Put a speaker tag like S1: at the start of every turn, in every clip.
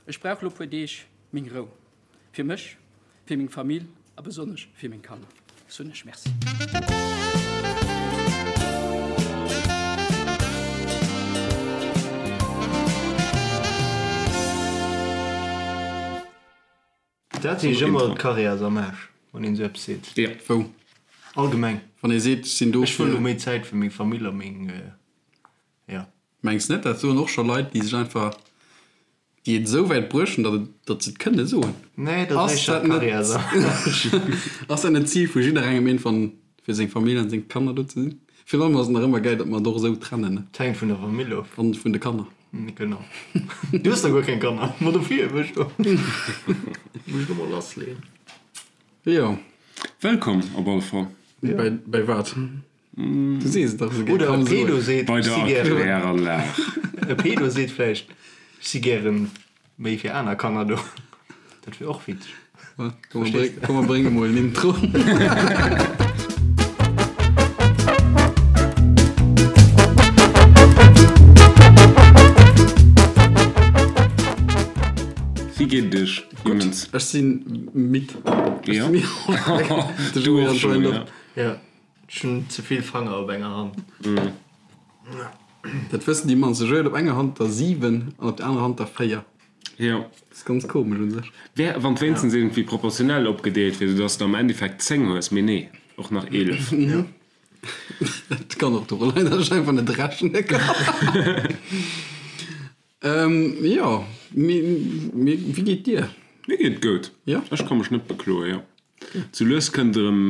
S1: Ech brauch lo puer Deeg meng Rou. Fir mech, fir meng Famill a besonnesch fir meng Kanner soen ech Merci.
S2: Dat heescht ëmmer, d'Karriär ass am Aarsch, wann een esou eppes seet.
S3: Jo.
S4: Wou?
S2: Allgemeng.
S4: Wann ee seet, ech sinn do
S2: Ech wëll elo méi Zäit fir meng Famill a meng, jo.
S4: Mengs net, dat soen och scho Leit, déi sech einfach, déi et esou wäit bruecht hunn, datt et, datt se et kënne soen.
S2: Nee, dat ass éischter d'Karriär ass am Aarsch.
S4: Ass dat net d'Zil vu jidderengem iergendwann, fir seng Famill an seng Kanner do ze sinn? Virun allem ass et nach ëmmer gäil, datt mer et och esou trennen, ne?
S2: Et hänkt vun der Famill of.
S4: An vun de Kanner.
S2: Genau. Du hues da guer keng Kanner. Ma dofir wëll ech do muss ech do mol lassleeën.
S4: Jo.
S3: Wëllkomm op alle Fall.
S4: Bäi, bäi wat? Du sees et dach esou gär.
S2: Oder e Pedo seet,
S3: Bei
S2: ech
S3: der
S2: si gären.
S3: Erkläranlag.
S2: E Pedo seet vläicht, ech si gären méi fir aner Kanner do. Dat wier och witzeg.
S4: Komm mer brénge mol en Intro.
S3: Wéi geet et iech, Jongens?
S4: Ech si midd.
S3: Jo.
S4: Du och schonn,
S3: jo.
S2: Jo, ech hunn ze vill Fanger op enger Hand.
S4: Dat wëssen déi mannst. Ech huet op enger Hand der 7 an op der anerer Hand der 4.
S3: Jo.
S4: Dat ass ganz komesch un sech.
S3: Wär, wann d'wéinstens iergendwéi proportionell opgedeelt wier, soudass de am Endeffekt 10 hues, mee nee, och nach 11.
S4: Jo. Dat kann och doru leien, datt ech einfach net rechne kann. Jo, mee wéi geet dir?
S3: Mir geet et goud.
S4: Jo?
S3: Ech ka mech net bekloen, jo. Sou lues kënnt erëm,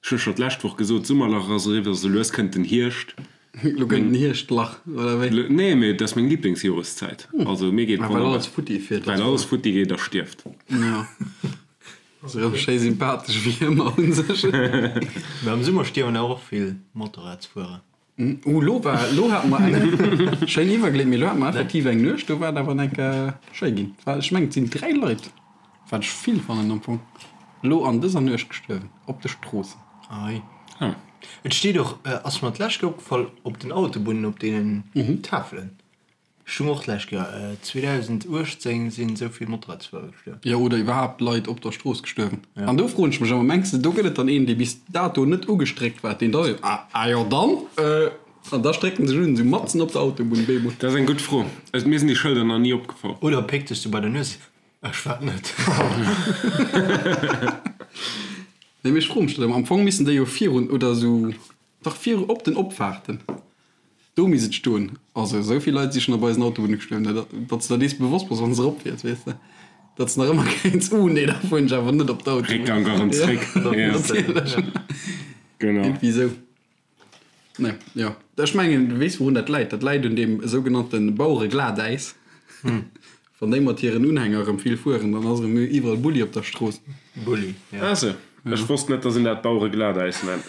S3: ech hu scho d'lescht Woch gesot, d'Summerlach ass eriwwer, sou lues kënnt den Hierscht.
S4: Lo kënnt den Hierschtlach, oder wéi?
S3: Nee, mee et ass meng Liblingsjoreszäit. Also mir geet
S4: Ah, well alles futti fiert.
S3: Well alles futti geet a stierft.
S4: Jo. Ass erëm schéi sympathesch wéi ëmmer un sech.
S2: Mee am Summer stierwen awer och vill Motorradsfuerer.
S4: Uh, lo war, lo hate mer eng schéin iwwergleet, mee lo hate mer effektiv eng Nuecht, do war et awer enk schéi ginn. War, ech mengen et sinn 3 Leit, wat ech vill fannen am Fong, lo an dëser Nuecht gestuerwen op de Stroossen.
S2: Ei.
S3: Ah.
S2: Et steet och, ass mer d'lescht Kéier opgefall, op den Autobunnen op deenen Tafelen. Ech hunn och d'lescht Joer, 2018, sinn esou vill Motorradsfuerer gestuerwen.
S4: Jo, oder iwwerhaapt Leit op der Strooss gestuerwen. An do froen ech mech ëmmer, mengs de do gëtt et dann een, dee bis dato net ugestréckt war, deen da seet, ah, ah jo dann, an da stréckt en sech un, esou matzen op der Autobunn, bemol.
S3: Dat ass eng gutt Fro. Mir sinn déi Schëlder nach ni opgefall.
S2: Oder péckt sech sou bei der Nues, ech war et net.
S4: Nee, mee ech froe mech dat ëmmer. Am Fong missten déi jo virun oder esou, dach viru op den Opfaarten. Do misst et stoen. Also esou vill Leit si schonn op eisen Autobunne gestuerwen, dat datt s de der dees bewosst bass, wann s erop fiers, weess de, datt s nach ëmmer kéints, Uh nee, da fueren ech awer net op d'Autobunn.
S3: Réckgank erëm zréck.
S4: Ja, natierlech.
S3: Genau.
S4: Iergendwéi esou. Nee, jo. Ech mengen, du weess wourun dat läit. Dat läit un deem sougenannte Bauereglatäis. Wann déi mat hiren Unhänger erëm vill fueren, dann ass erëm iwwerall Bulli op der Strooss.
S2: Bulli, ja.
S3: Ah sou. Ech wosst net, datt een dat Bauereglatäis nennt.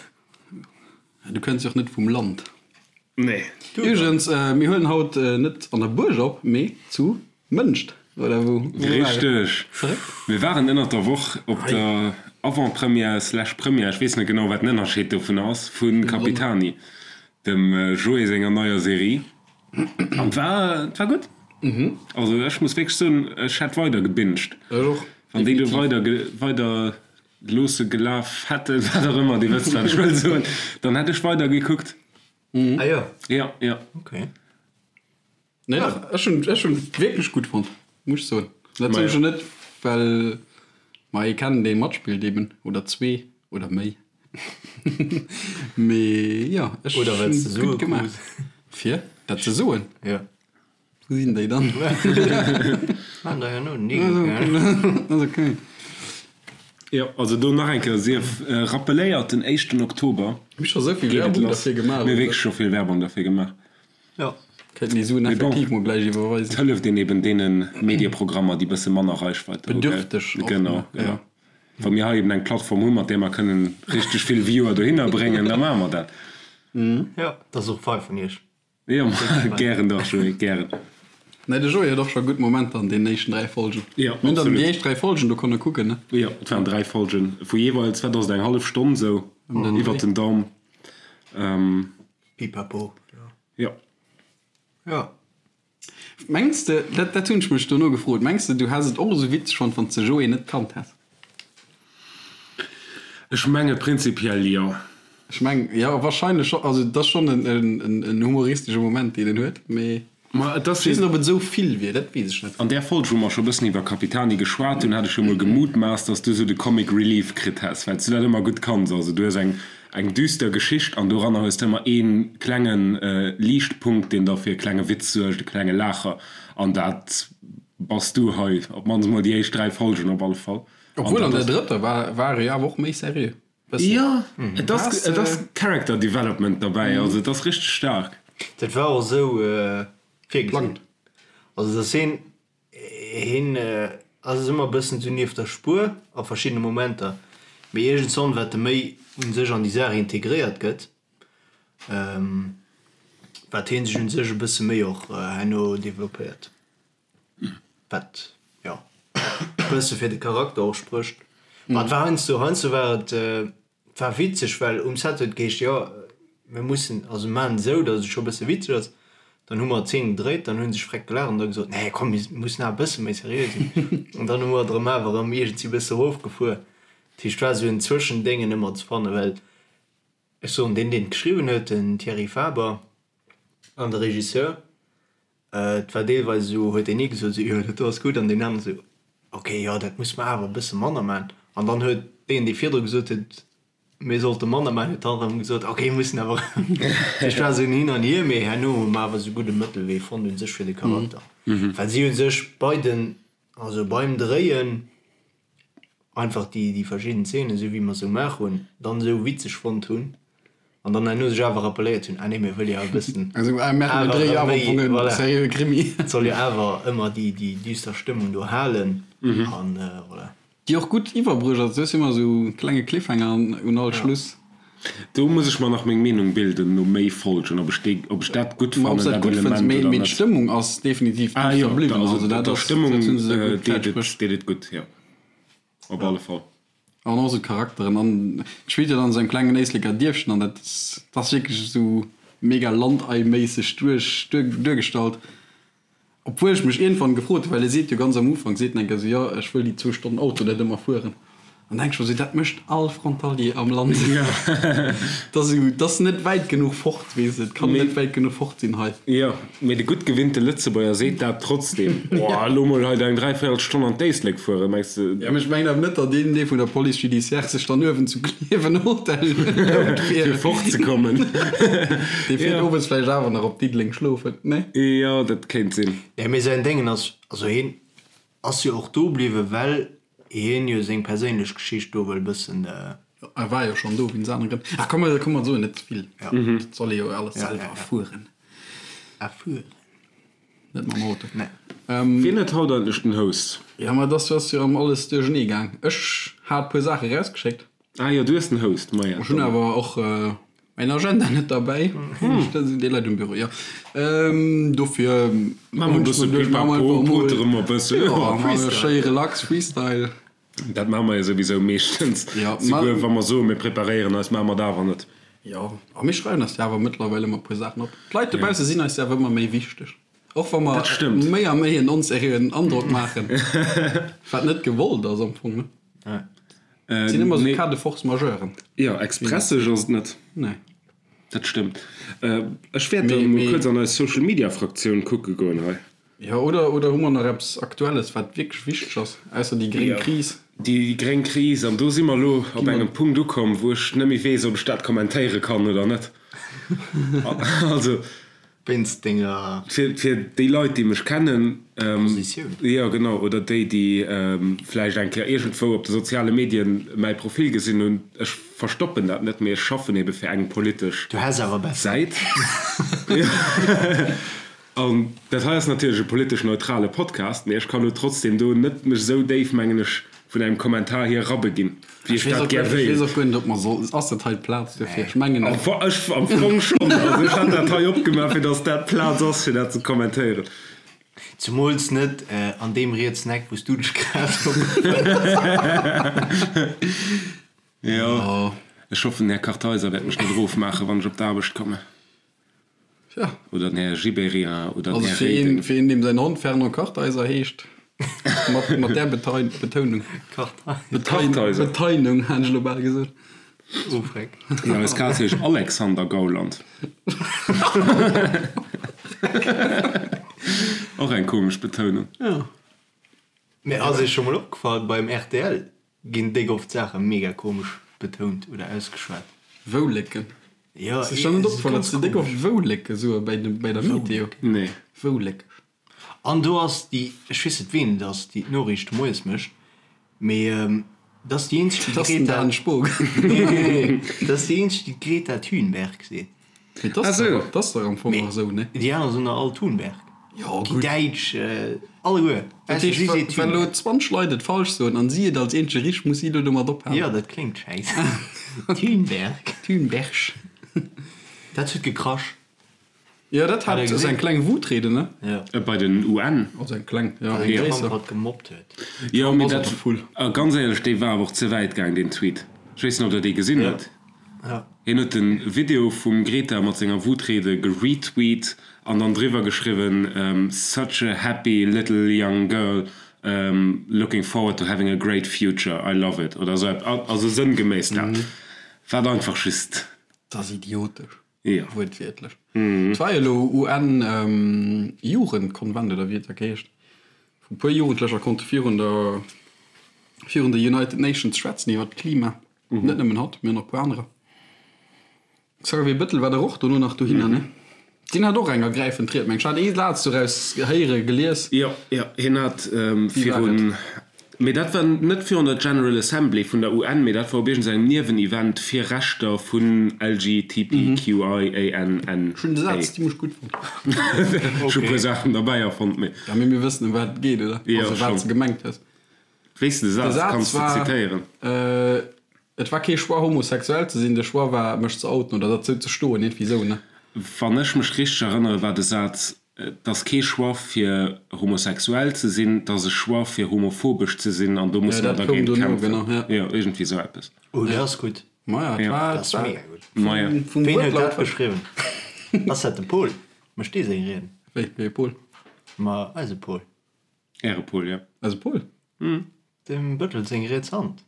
S4: Du kënns jo och net vum Land.
S3: Nee.
S4: Iwwregens, mir huelen haut net an der Buerg op, mee zu Mënscht, oder wou?
S3: Richteg. Mir waren ënnert der Woch op der Avant-Première slash Première, ech weess net genau wat den Ënnerscheed dovun ass, vu Capitani, dem Joé senger neier Serie. An et war, et war gutt. Also ech muss wierklech soen, ech hätt weider gebinged.
S4: Ech och.
S3: Wann déi do weider, weider Loosse gelaf hätten, wat och ëmmer, Dir wësst, wat ech wëll soen, dann hätt ech weider gekuckt.
S2: Ah jo?
S3: Ja, ja.
S2: Ok.
S4: Nee, dach, ech hunn, ech hunn wierklech gutt fonnt, muss ech soen. Dat soen ech jo net, well mer ee kennen, dee matspillt eben, oder zwee oder méi. Mee jo, ech
S2: Oder well s de
S4: hunn
S2: Sue
S4: gutt gemaach.
S2: krus.
S4: Fir dat ze soen?
S2: Jo.
S4: Wou sinn déi dann?
S2: Maan der herno den Igel, gell?
S4: Ass ok.
S3: Jo, also do nach eng Kéier sief rappeléiert, den éischten Oktober
S4: Mir hu scho sou vill
S3: geet et
S4: Werbung
S3: lass.
S4: derfir gemaach,
S3: Mir hu
S4: oder?
S3: wierklech scho vill Werbung derfir gemaach.
S2: Jo.
S4: Kéinten déi Suen
S3: Mee bon,
S4: effektiv mol gläich
S3: et
S4: iwwerweisen.
S3: hëlleft een eben deene Medieprogrammer, déi bësse manner Reichweite hu, gell?
S4: Bedürfteg och,
S3: Genau,
S4: ne?
S3: genau.
S4: Jo.
S3: Wa mir hei eben eng Plattform hu mat där mer kënnen richteg vill Viewer dohinner bréngen, da maache mer dat.
S2: Jo, dat ass och fei vun iech.
S3: Jo, gären dach, Joé, gären.
S4: Nee, de Joé huet och scho gutt Momenter an deenen éischten 3 Folgen.
S3: Jo,
S4: Mir hunn dann
S3: absolut.
S4: déi éischt 3 Folgen do konne kucken, ne?
S3: Jo, et waren 3 Folgen vu jeeweils, wat ass et, eng hallef Stonn sou iwwert den Daum.
S2: Pipapo, jo.
S3: Jo.
S2: Jo.
S4: Mengs de, dat, dat hunn ech mech dono gefrot, mengs de, du häss et och esou witzeg fonnt, wann s de Joé net kannt häss?
S3: Ech menge prinzipiell jo.
S4: Ech meng, jo, wahrscheinlech scho. Also et ass schonn en, en, en humoristesche Moment, deen en huet, mee
S3: Ma et ass
S4: ech weess net, ob et esou vill wier, dat weess ech net.
S3: An där Folg, wou mer scho bëssen iwwer Capitani geschwat hunn, hat ech jo mol gemutmaasst, dass du esou de Comic Relief kritt häss, well s du dat ëmmer gutt kanns. Also du hues eng, eng düster Geschicht an doranner hues de ëmmer ee klenge Liichtpunkt, deen da fir e klenge Witz suergt, e klenge Laacher. An dat bass du hei, op d'mannst mol déi éischt 3 Folgen op alle Fall.
S4: An Obwuel an
S3: dat
S4: der drëtter war, war e jo awer och méi seriö.
S3: Bëssen. Jo, et ass, et ass Character Development derbäi, also et ass richteg staark.
S2: Dat war och esou virgesinn. Also dass hien, hien ass ëmmer e bëssen esou nieft der Spuer a verschiddene Momenter, mee iergendswann wat e méi u sech an déi Saach integréiert gëtt, wat hien sech u sech e bësse méi och herno developpéiert. Wat, jo, e bësse fir de Charakter och sprécht. Ma et war heiansdo, heiansdo war et, et war witzeg, well um Set huet et geheescht, jo, mir mussen, also mir maachen et esou, datt et scho e bësse witzeg ass. Dann hu mer d'Zeen gedréit, dann hu sech freck gelaacht an da gesot, nee, komm, mir mussen awer e bësse méi seriö sinn. An dann hu mer et erëm awer erëm iergendwéi e bësse erofgefuer. Dat heescht, et war esou en Zwëschendéngen ëmmer ze fannen, well ech soen, deen, deen et geschriwwen huet, den Thierry Faber an de Regisseur, Et war deelweis esou, huet deen ee gesot esou, jo dat do ass gutt, an deen aneren esou, ok, jo dat musse mer awer e bësse manner maachen. An dann huet deen, dee virdru gesot huet, mir sollte manner maachen, huet dann erëm gesot, ok, mir mussen awer erëm. Dat heescht, et war esou en Hin an Hier, mee herno hu mer awer esou gudde Mëttelwee fonnt u sech fir de Charakter, well si hu sech bei den, also beim Dréien, einfach déi déi verschidden Zeenen, esou wéi mer se gemaach hunn, dann esou witzeg fonnt hunn an dann herno sech awer rappelléiert hunn, ah nee, mir wëlle jo e bëssen awer erëm méi, voilà, et soll jo awer ëmmer déi déi düster Stëmmung do halen an voilà.
S4: Déi och gutt iwwerbruecht ass, du hues ëmmer esou klenge Cliffhanger un all Schluss.
S3: Do muss ech mer nach meng Meenung bilden no méi Folgen, ob ech déi, ob ech dat gutt
S4: fannen, dat Element oder net. Mee d'Stëmmung ass definitiv
S3: ah, jo, bliwwen. Also dat der Stëmmung deet et, deet et gutt, jo, op alle Fall.
S4: An och esou d'Charakteren an et spillt jo dann an esou engem klengen Éisleker Dierfchen an dat ass wierklech esou mega Landei-méisseg duerch duergestallt. Obwuel ech mech iergendwann gefrot hunn, well e seet jo ganz am Ufank, seet en eng Kéier esou, jo ech wëll déi zwou Stonnen Auto net ëmmer fueren. An denk ech mer esou, dat mécht all Frontalier am Land. Dat ass esou, dat ass net wäit genuch fort, weess de, et kann net wäit genuch fort sinn hei.
S3: Jo, mee de gutt gewinnte Lëtzebuerger seet dat trotzdem. Oh, elo mol hei eng dräivéierel Stonn an d'Éislek fueren, mengs de?
S4: Jo, mee ech mengen awer net, datt een dee vun der Police judiciaire sech dann uewen zu Klierf en Hotel lount
S3: fir. Fir fortzekommen.
S4: Dee fiert owes vläicht awer nach op Diddeleng schlofen, nee?
S3: Jo, dat kéint sinn.
S2: Nee, mee säin Déngen ass, also hien ass jo och do bliwwen, well hien jo seng perséinlech Geschicht do wëll bëssen.
S4: E war jo schonn do wéinst anere Grënn. Ach komm, komm mer soen net ze vill. Dat soll ee jo alles selwer erfueren.
S2: Erfueren.
S4: Net mam Auto.
S2: Nee.
S3: Wien huet haut eigentlech den Host?
S4: Jo, ma et ass jo erëm alles duerchernee gaang. Ech hat e puer Saache erausgeschéckt.
S3: Ah jo, du hues den Host, maja.
S4: Ech hunn awer och mäin Agenda net derbäi. Dee läit um Büro, jo. Dofir
S3: Maache mer e bësse Pipapo, potere mer e bësse.
S4: Jo, maache mer schéi relax Freestyle.
S3: Dat maache mer jo souwisou meeschtens. Souguer wa mer soen, mir preparéieren eis, maache mer et awer net.
S4: Jo, a mir schreiwen eis jo awer mëttlerweil ëmmer e puer Saachen op. D'Leit dobausse sinn eis jo awer ëmmer méi wichteg. Och wa mer méi a méi en onseriöen Androck maachen, wat net gewollt ass am Fong, ne? Et sinn ëmmer esou Cas de force majeuren.
S3: Jo, expresseg ass et net.
S4: Nee.
S3: Dat stëmmt. Ech wäert dann emol kuerz an eis Social Media Fraktioun kucke goen hei.
S4: Jo, oder, oder hu mer nach eppes Aktuelles, wat wierklech wichteg ass, ausser déi gréng Kris?
S3: Déi gréng Kris, an do si mer elo op engem Punkt ukomm, wou ech net méi weess, ob ech dat kommentéiere kann oder net. Also.
S2: Wéinst denger.
S3: Fir déi Leit, déi mech kennen.
S2: Positioun.
S3: Jo, genau. Oder déi, déi vläicht eng Kéier iergendwou op de soziale Medien mäi Profil gesinn hunn. Ech verstoppen dat net, mee ech schaffen ebe fir eng politesch
S2: Du häss awer besser.
S3: Säit. An dat hei ass natierlech e politesch neutrale Podcast, mee ech kann elo trotzdem do net mech esou déif, mengen ech, vun engem Kommentar hier erabeginn, wéi ech dat gär
S4: Ech weess och guer net, ob mer soll, ass dat hei d'Plaz dofir? Ech mengen
S3: net. Ech am Fong schonn. Also ech hat dat hei opgemaach, fir datt dat d'Plaz ass, fir dat ze kommentéieren.
S2: Zemools net an deem rietsen Eck, wou s du dech grad opgefënnt
S3: hues. Jo, ech hoffen, den Här Kartheiser wäert mech net erofmaachen, wann ech op d'Aarbecht kommen.
S4: Ja.
S3: Oder den Här Gibéryen oder den
S4: Also
S3: Här
S4: fir een,
S3: Reding.
S4: fir een, deem säin Hond Fernand Kartheiser heescht, mat, mat där Betein, Betounung. Betein,
S3: Kartheiser.
S4: Beteinung, hat ech elo bal gesot.
S2: Oh, freck.
S3: Jo, eis Kaz heescht Alexander Gauland. Och eng komesch Betounung.
S4: Ja.
S2: Mee ass iech scho mol opgefall, beim rtl ginn déck oft Saache mega komesch betount oder ausgeschwat.
S4: Woulécken.
S2: Jo,
S4: Ass iech dann net
S2: et ass
S4: opgefall, datt
S2: ganz
S4: se déck
S2: komesch.
S4: oft Woulécke soe bei de, bei der Meteo?
S3: Nee.
S4: Wouléck.
S2: An do ass déi, ech weess net ween et ass, déi d'Noriichte moies mécht, mee dat ass déi eenzeg, déi
S4: Dat ass den
S2: d'Greta,
S4: Dan Spogen.
S2: nee, nee, nee, dat ass déi eenzeg, déi d'Greta Thunberg seet.
S4: Mee dat ass dach, dat ass dach am Fong och esou, ne?
S2: Déi aner soen der all Thunberg.
S4: Jo,
S2: Déi
S4: gutt.
S2: Däitsch, alleguer.
S4: Dat
S2: Weess de,
S4: heescht,
S2: si
S4: wa,
S2: seet
S4: wa elo
S2: Thunberg.
S4: 20 Leit et falsch soen an si et als eenzege richteg, muss si elo domat ophalen.
S2: Jo, dat kléngt schäiss. Thunberg.
S4: Thunberg.
S2: Dat huet gekrasch.
S4: Jo, dat hat ass eng kleng Wutrede, ne?
S2: Jo.
S3: Bei den UN.
S4: Also eng kleng, jo, eng
S2: Well den
S4: gréisser.
S2: Trump hatt gemobbt huet.
S3: Jo, mee
S4: Ass
S3: dat,
S4: och full.
S3: a ganz éierlech, dee war awer och ze wäit gaang, deen Tweet. Ech weess net, ob Der dee gesinn hutt.
S2: Ja.
S3: Hien huet de Video vum Greta mat senger Wutrede geretweet an dann driwwer geschriwwen, Such a happy little young girl, looking forward to having a great future, I love it oder esou eppes, also sënngeméiss dat, wat einfach just.
S4: Dat ass idiotesch.
S3: Jo.
S4: Wuertwiertlech. Et war jo elo UN-Jugendkonvent oder wéi et da geheescht, wou e puer Jugendlecher konnte virun der, virun de United Nations schwätzen iwwer d'Klima. Net nëmmen hatt, mee och nach e puer anerer. Xavier Bettel war dach och dono nach dohinner, ne? Deen hat och eng ergräifend Ried, meng ech. Hat ee Saz doraus héiere, gelies.
S3: Jo, jo, hien hat
S4: Wéi war
S3: virun,
S4: et?
S3: mee dat war net virun der General Assembly vun der UN, mee dat war op iergendengem Niewenevent fir Rechter vun LGTBQIANNA.
S4: Ech hunn de Saz zimmlech gutt fonnt.
S3: Ech hu e puer Saachen derbäi erfonnt, mee.
S4: Ja, mee mir wëssen, ëm wat et geet, oder?
S3: Jo,
S4: Also, wat
S3: schonn.
S4: s de gemengt hues.
S3: Wéis de
S4: De
S3: Saz
S4: Saz
S3: kanns de
S4: war,
S3: zitéieren?
S4: Et war kee Choix homosexuell ze sinn, de Choix war mech ze outen oder derzou ze stoen, iergendwéi esou, ne?
S3: Wann ech mech richteg erënnere war de Saz, Et ass kee Choix fir homosexuell ze sinn, et ass e Choix fir homophobesch ze sinn an do
S4: Ja,
S3: musse mer
S4: dat koum
S3: dergéint
S4: dono,
S3: kämpfen.
S4: genau, ja.
S3: Jo, iergendwéi esou eppes.
S2: Oh, dat ass gutt.
S4: Maja, et
S3: Ja.
S4: war,
S2: Dat
S4: et
S2: ass
S4: war
S2: mega gutt.
S3: Maja.
S4: vum, vum
S2: Ween huet dat
S4: Wuertlaut.
S2: geschriwwen? Ass dat de Pol? Mécht dee seng Rieden?
S4: Wéi, wéi e Pol?
S2: Ma eise Pol.
S3: Äre Pol, jo.
S4: Eise Pol?
S2: Dem Bëttel seng riets Hand.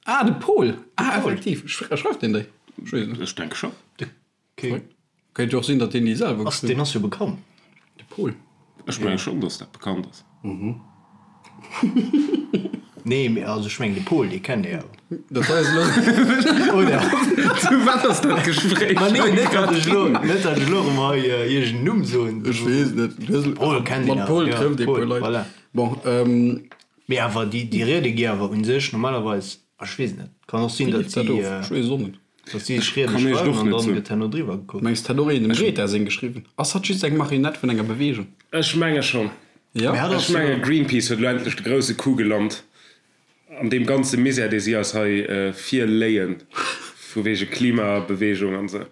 S4: Ah, de Pol! Ah, effektiv. Schreift deen déi? Ech weess net.
S3: Ech denke scho.
S2: De Ke.
S4: Kéint jo och sinn, datt deen déi selwer
S2: Ass,
S4: geschriwwen
S2: deen ass jo bekannt.
S4: De Pol.
S3: Ech menge schonn, datt dat bekannt ass.
S2: Nee, mee also ech mengen de Pol, dee kennt ee awer.
S4: Dat hei ass elo.
S2: Oder?
S3: Zu wat ass dat Gespréich
S2: Ma nee, net datt ech elo,
S3: hei
S2: net datt ech elo erëm hei iergend en Numm soen.
S4: Ech weess net.
S2: Pol kennt een
S4: Mat
S2: awer,
S4: Pol
S2: ja,
S4: trëfft ee
S2: Pol,
S4: puer Leit.
S2: voilà.
S4: Bon, ähm.
S2: Mee awer déi, déi Riede gi awer u sech normalerweis, ech weess net, kann och sinn,
S4: Wéi
S2: datt
S4: leeft dat
S2: si,
S4: of? Ech weess et och net.
S2: datt si sech Riede
S3: Kann ech et
S2: schreiwen
S3: och
S2: an
S3: net
S2: dann
S3: soen.
S2: gëtt herno driwwer gekuckt.
S4: Mengs de, hat och een dem Greta seng geschriwwen? Ass hatt just eng Marionett vun enger Beweegung?
S3: Ech menge schonn.
S4: Jo?
S2: Mee hatt
S3: Ech
S2: ass jo.
S3: menge Greenpeace huet elo endlech de grousse Coup gelant an deem ganze Misär, dee si eis hei virléien, vu wege Klimabewegung an esou.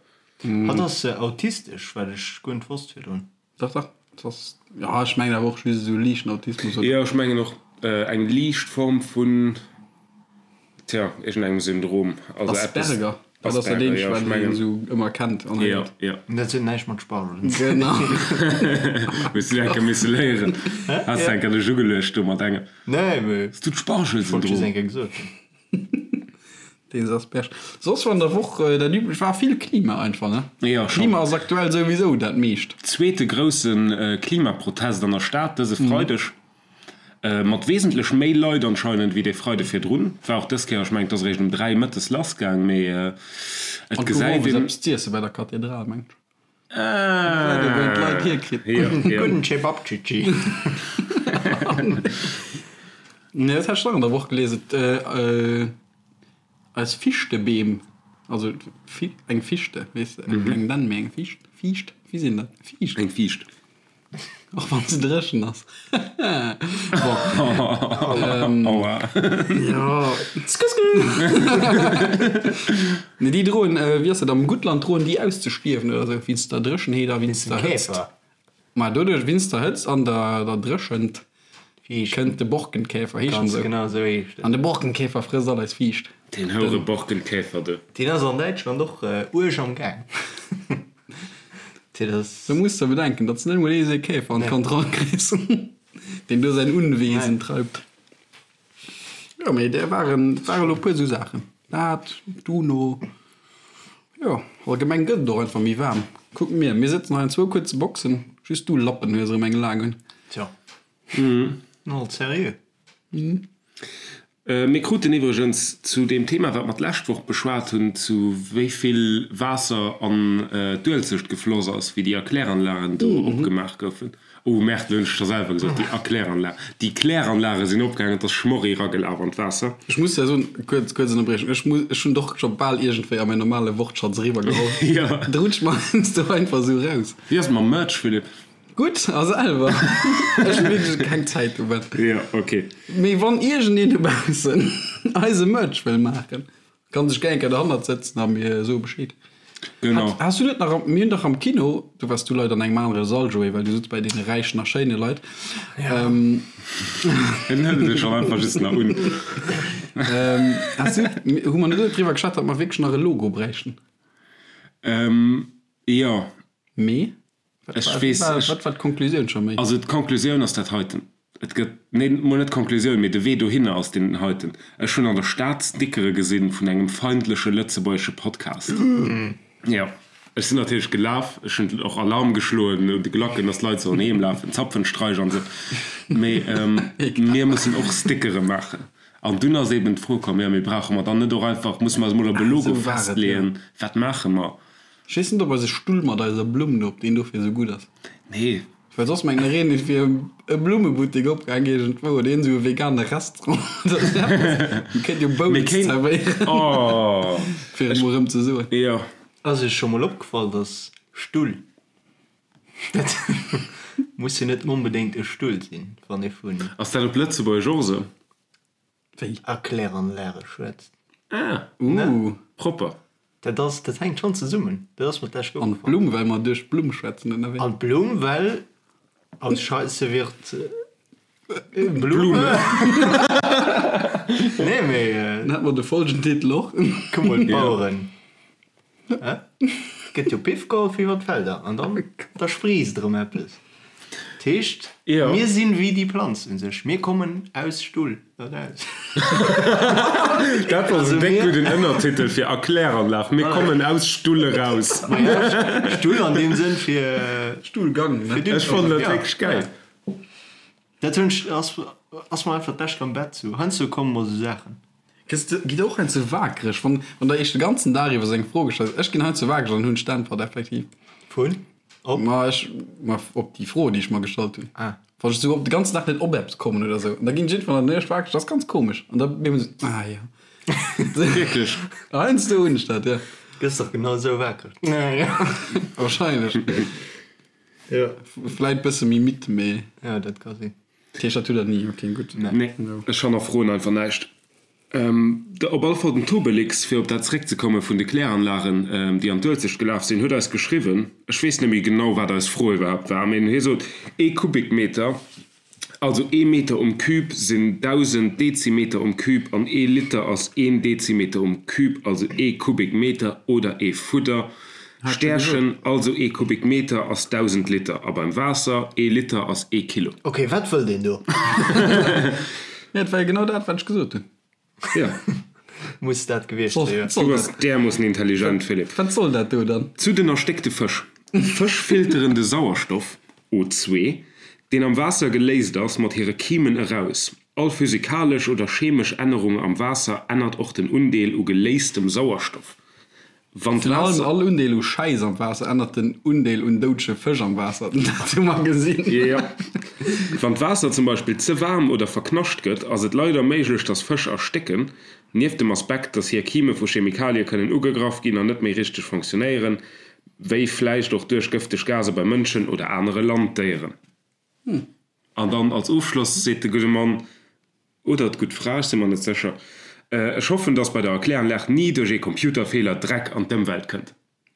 S2: Hatt ass autistesch, wat ech guer net wosst virdrun.
S4: Dach, dach, et ass, jo, ech mengen awer och just esou liichten Autismus, oder?
S3: Jo, ech mengen och eng liicht Form vun, tja, iergendengem Syndrom. Also eppes.
S4: Asperger, dat ass dat
S3: Asperger,
S4: eenzegt,
S3: jo, ech
S4: wat een
S3: mengen.
S4: esou ëmmer kennt an
S3: Jo,
S4: héiert.
S3: jo.
S2: Dat huet näischt mat Spargelen ze
S4: Genau.
S3: Hues du enker misse léieren? Has du enker dech ugeluecht do mat engem?
S2: Nee, mee
S3: Hues du
S2: ech wollt just
S3: d'Spargelsyndrom?
S2: eng Kéier gesot hunn.
S4: Deen Asperge. Soss war an der Woch dat üblecht, war vill Klima einfach, ne?
S3: Jo, schon.
S4: Klima ass aktuell souwisou dat meescht.
S3: Zweete grousse Klimaprotest an der Stad dëse Freideg. Mat wesentlech méi Leit anscheinend wéi dee Freide virdrun. War och dës Kéier, ech mengen et ass eréischt um 3 mëttes lassgaang, mee et
S4: An gouf
S3: gesäit
S4: owes
S3: een.
S4: eppes z'iesse bei der Kathedral, mengt ech.
S3: Ah!
S4: Wou een d'Leit hierkritt.
S3: Jo, jo.
S2: Gudden Cevapcici.
S4: Nee, dat hat ech nach an der Woch gelies. Et, eis Fischtebeem, also eng Fichte, weess de, keng Dänn, mee eng Ficht, Fiicht, wéi sinn dat? Fiicht.
S3: Eng Fiicht.
S4: Och wann se dréchen ass. Bon.
S3: Aua.
S4: Jo. Sku, sku. Nee, déi droen, wéi ass dat, am Guttland droen déi auszestierwen oder esou, wéinst der Dréchenheet a wéinst der Hëtzt.
S2: Käfer.
S4: Ma doduerch, wéinst der Hëtzt an der der Dréchent,
S2: Fiicht.
S4: kënnt de Borkenkäfer, heescht en
S2: Ganz
S4: esou.
S2: genau esou heescht en.
S4: An de Borkenkäfer frësst all eis Fiicht.
S3: Deen houre Borkenkäfer, du.
S2: Deen ass an Däitschland och uerg am Gaang.
S4: Da muss de bedenken, datt s de net emol ee Seekäfer an d'Kand erakriss, deen do säin Unwesen treibt. Jo, mee där waren, et ware lo e puer esou Saachen. Dat, d'UNO, jo, allgemeng gëtt et och einfach méi waarm. Kuck mir, mir sëtzen hei an zwou kuerze Boxen, just du Lappen hues erëm eng laang un.
S2: Tjo, alt seriö.
S3: Mir kruten iwwregens zu deem Thema, wat mer d'lescht Woch beschwat hunn, zu wéi vill Waasser an d'Uelzecht gefloss ass, wéi déi Erkläranlagen do opgemaach goufen. Oh Merde, elo hunn ech scho selwer gesot, déi Erkläranlagen. Déi Kläranlage sinn opgaangen, et ass Schmorri eragelaf an d'Waasser.
S4: Ech muss der soen, kuerz, kuerz Ënnerbriechung, ech muss, ech hunn doch scho bal iergendwéi a mäin normale Wortschatz eriwwergeholl.
S3: Jo.
S4: Et rutscht mer heiansdo einfach esou raus.
S3: Wéi ass et mam Merch, Philippe?
S4: Gutt, a selwer? Ech hu wierklech keng Zäit um Bett.
S3: Jo, ok.
S4: Mee wann iergendeen dobaussen eise Merch wëll maachen, kann sech gär eng Kéier derhannert sëtzen a mir soe Bescheed.
S3: Genau.
S4: Hat, has du net nach am, mir hunn dach am Kino, do waars du leider an engem anere Sall, Joé, well du sutz bei deene räichen a schéine Leit.
S3: En hëlt et schonn einfach just nach un.
S4: Has du, hu mer net driwwer geschwat, datt mer wierklech nach e Logo bräichten?
S3: Jo.
S4: Mee?
S3: Ech weess, ech.
S4: Wat war d'Konklusioun scho méi?
S3: Also d'Konklusioun ass dat heiten, Et gëtt, nee, mol net d'Konklusioun, mee de Wee dohinner ass deen heiten, Ech hunn an der Stad Stickere gesinn vun engem feindleche lëtzebuergesche Podcast. Jo, ech sinn natierlech gelaf, ech hunn och Alarm geschloen un de Glacken, dass d'Leit sollen heem lafen, Zapfenstreich an esou. Mee mir mussen och Stickere maachen. An dunn ass eeben d'Fro komm, jo, mee brauche mer dann net och einfach, musse mer eis mol op e Logo festleeën, wat maache mer?
S4: Ech weess net op eise Stull mat eiser Blumm do, op deen dofir esou gutt ass.
S3: Nee.
S4: Well soss mengen ech een, et wier e Blummebuttek opgaang iergendwou oder iergend esou e vegane Restaurant oder esou eppes. Mir kéint jo Bowls zerwéieren.
S3: Oh.
S4: Fir et mol erëm ze soen.
S3: Jo.
S2: Ass iech scho mol opgefall, dass Stull, dat muss jo net onbedéngt e Stull sinn, wann ee vun.
S3: Ass dat op Lëtzebuergesch och esou?
S4: Wéi?
S2: Erkläranlage schwätzt.
S3: Ah,
S4: Uh.
S3: propper.
S2: Dat ass, dat hänkt schonn zesummen. Dat ass mer d'lescht
S4: An
S2: opgefall.
S4: d'Blumm, well mer duerch d'Blumm schwätzen, oder wéi?
S2: An d'Blumm, well aus Scheisse wird Blume. Nee, mee.
S4: Dann hätte mer de Folgentitel och.
S2: Kuck mol, d'Baueren. Et gëtt jo Piff geholl fir iwwer d'Felder an dann da spriisst erëm eppes. Dat heescht, mir sinn wéi déi Planz un sech, mir kommen aus Stull eraus.
S3: Dat ass en déck gudden Ënnertitel fir Erkläranlag, Mir kommen aus Stull eraus.
S2: Stull an deem Sënn fir
S4: Stullgang, ne?
S3: Ech fannen dat wierklech gäil.
S2: Dat hunn ech, ass, ass mer einfach d'lescht am Bett sou. Heiansdo komme mer sou Saachen.
S4: Gëss de, gitt och heiansdo waakreg, wann, wann der iech de ganzen Dag iwwer sou eng Fro gestallt gëtt. Ech ginn heiansdo waakreg an hunn ech d'Äntwert effektiv.
S2: Vun? Op?
S4: Ma ech, ma op déi Fro, déi ech mer gestallt hunn.
S2: Ah.
S4: Wann ech sou op de ganzen Dag net op eppes kommen oder sou, an da ginn ech iergendwann an der Nuecht waakreg, dat ass ganz komesch. An da bin ech sou, ah jo.
S3: Wierklech?
S4: Heiansdo hunn ech dat, jo.
S2: Gëss dach genau sou waakreg.
S4: Wahrscheinlech.
S2: Jo.
S4: Vläit bësse méi midd, mee.
S2: Jo, dat ka sinn.
S4: Dat heescht, dat hutt der ni? Ok, gutt.
S3: Nee, ech hannerfroen einfach näischt. Op alle Fall den Tobelix, fir op dat zeréckzekomme vun de Kläranlagen, déi an d'Uelzecht gelaf sinn, huet eis geschriwwen, ech weess net méi genau, wat eis Fro iwwerhaapt war, mee hie sot, ee Kubikmeter, also ee Meter um Cube sinn 1.000 Dezimeter um Cube an ee Liter ass een Dezimeter um Cube, also ee Kubikmeter oder ee Fudder. Stärchen, also ee Kubikmeter ass 1.000 Liter a beim Waasser, ee Liter ass ee Kilo.
S2: Ok, wat wëll deen do?
S4: Ja, et war jo genau dat, wat ech gesot hunn.
S3: Jo.
S2: Muss dat gewiescht sinn, jo.
S3: Du bass därmoossen intelligent, Philippe.
S4: Wat soll dat do dann?
S3: Zu den erstéckte Fësch. Fësch filteren de Sauerstoff, O2, deen am Waasser geléist ass, mat hire Kimen eraus. All physikalesch oder chemesch Ännerung am Waasser ännert och den Undeel u geléistem Sauerstoff. Wann
S4: Virun allem
S3: d'Waasser.
S4: all Undeel u Schäiss am Waasser ännert den Undeel un doudege Fësch am Waasser. Dat hu mer gesinn.
S3: Jo. Wann d'Waasser zum Beispill ze waarm oder verknascht gëtt, ass et leider méiglech, dass Fësch erstécken. Nieft dem Aspekt, dass hir Kime vu Chemikalie kënnen ugegraff ginn an net méi richteg fonctionnéieren, wéi vläicht och duerch gëfteg Gase bei Mënschen oder anere Landdéieren. An dann als Ofschloss seet de gudde Mann, oder d'gutt Fra, ech si mer net sécher, Ech hoffen, dass bei der Erkläranlag ni duerch ee Computerfeeler Dreck an d'Ëmwelt kënnt.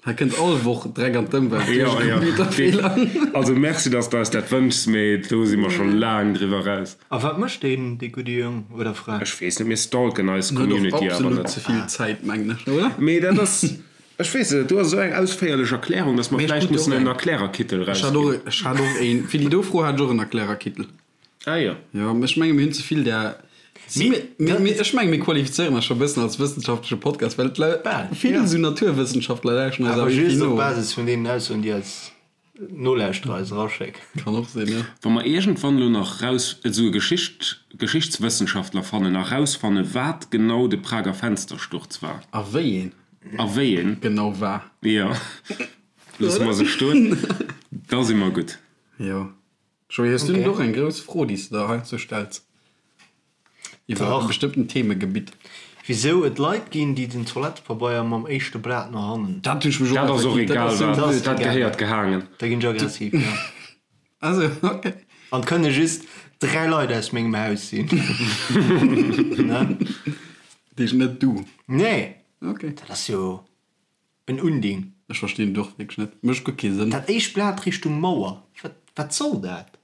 S4: Hei kënnt all Woch Dreck an d'Ëmwelt duerch
S3: Jo,
S4: e
S3: jo.
S4: Computerfeeler.
S3: Also merci, dass de eis dat wënschs, mee do si mer scho laang driwwer eraus.
S2: A wat mécht deen, dee gudde Jong oder Fra?
S3: Ech weess net, mir stalken eis
S4: En huet och
S3: Community awer
S4: absolut
S3: net.
S4: ze vill Zäit, mengen ech, oder?
S3: Mee dat ass. Ech weess et net, do ass esou eng ausféierlech Erklärung, dass mer vläicht mussen en Erklärerkittel
S4: erausginn. Ech hat och een, fir déi do Fro hat ech och en Erklärerkittel.
S3: Ah jo.
S4: Jo, ech menge mir hunn ze vill där. Ech menge mir qualifizéieren eis scho e bëssen als wëssenschaftleche Podcast, well et vill esou Naturwëssenschaftler lauschteren
S2: eis awer just op Basis vun deenen Aussoen, déi eis Nolauschterer eis eraschécken.
S4: Kann och sinn, jo.
S3: Wa mer iergendwann elo nach raus esou e Geschicht Geschichtswëssenschaftler fannen a rausfanne wat genau de Prager Fenstersturz war.
S4: A wéi een.
S3: A wéi een.
S4: Genau war.
S3: Jo, loosse mer se stoen, da si mer gutt.
S4: Jo. Joé, hues du net och eng grouss Fro, déi s de der heiansdo stells iwwer e bestëmmten Themegebitt?
S2: Wisou et Leit ginn, déi den Toilettepabeier mam éischte Blat no hannen.
S4: Dat hunn ech mech och
S3: Dat ass och egal wat, dat gehéiert gehaangen.
S2: Da ginn ech aggressiv, jo.
S4: Ah sou, ok.
S2: An et kënne just 3 Leit aus mengem Haus sinn. Ne?
S4: Dat heescht net du?
S2: Nee.
S4: Ok.
S2: Dat ass jo. En Unding.
S4: Ech verstinn et och wierklech net. Mécht guer kee Sënn.
S2: Dat éischt Blat Richtung Mauer, wat, wat soll dat?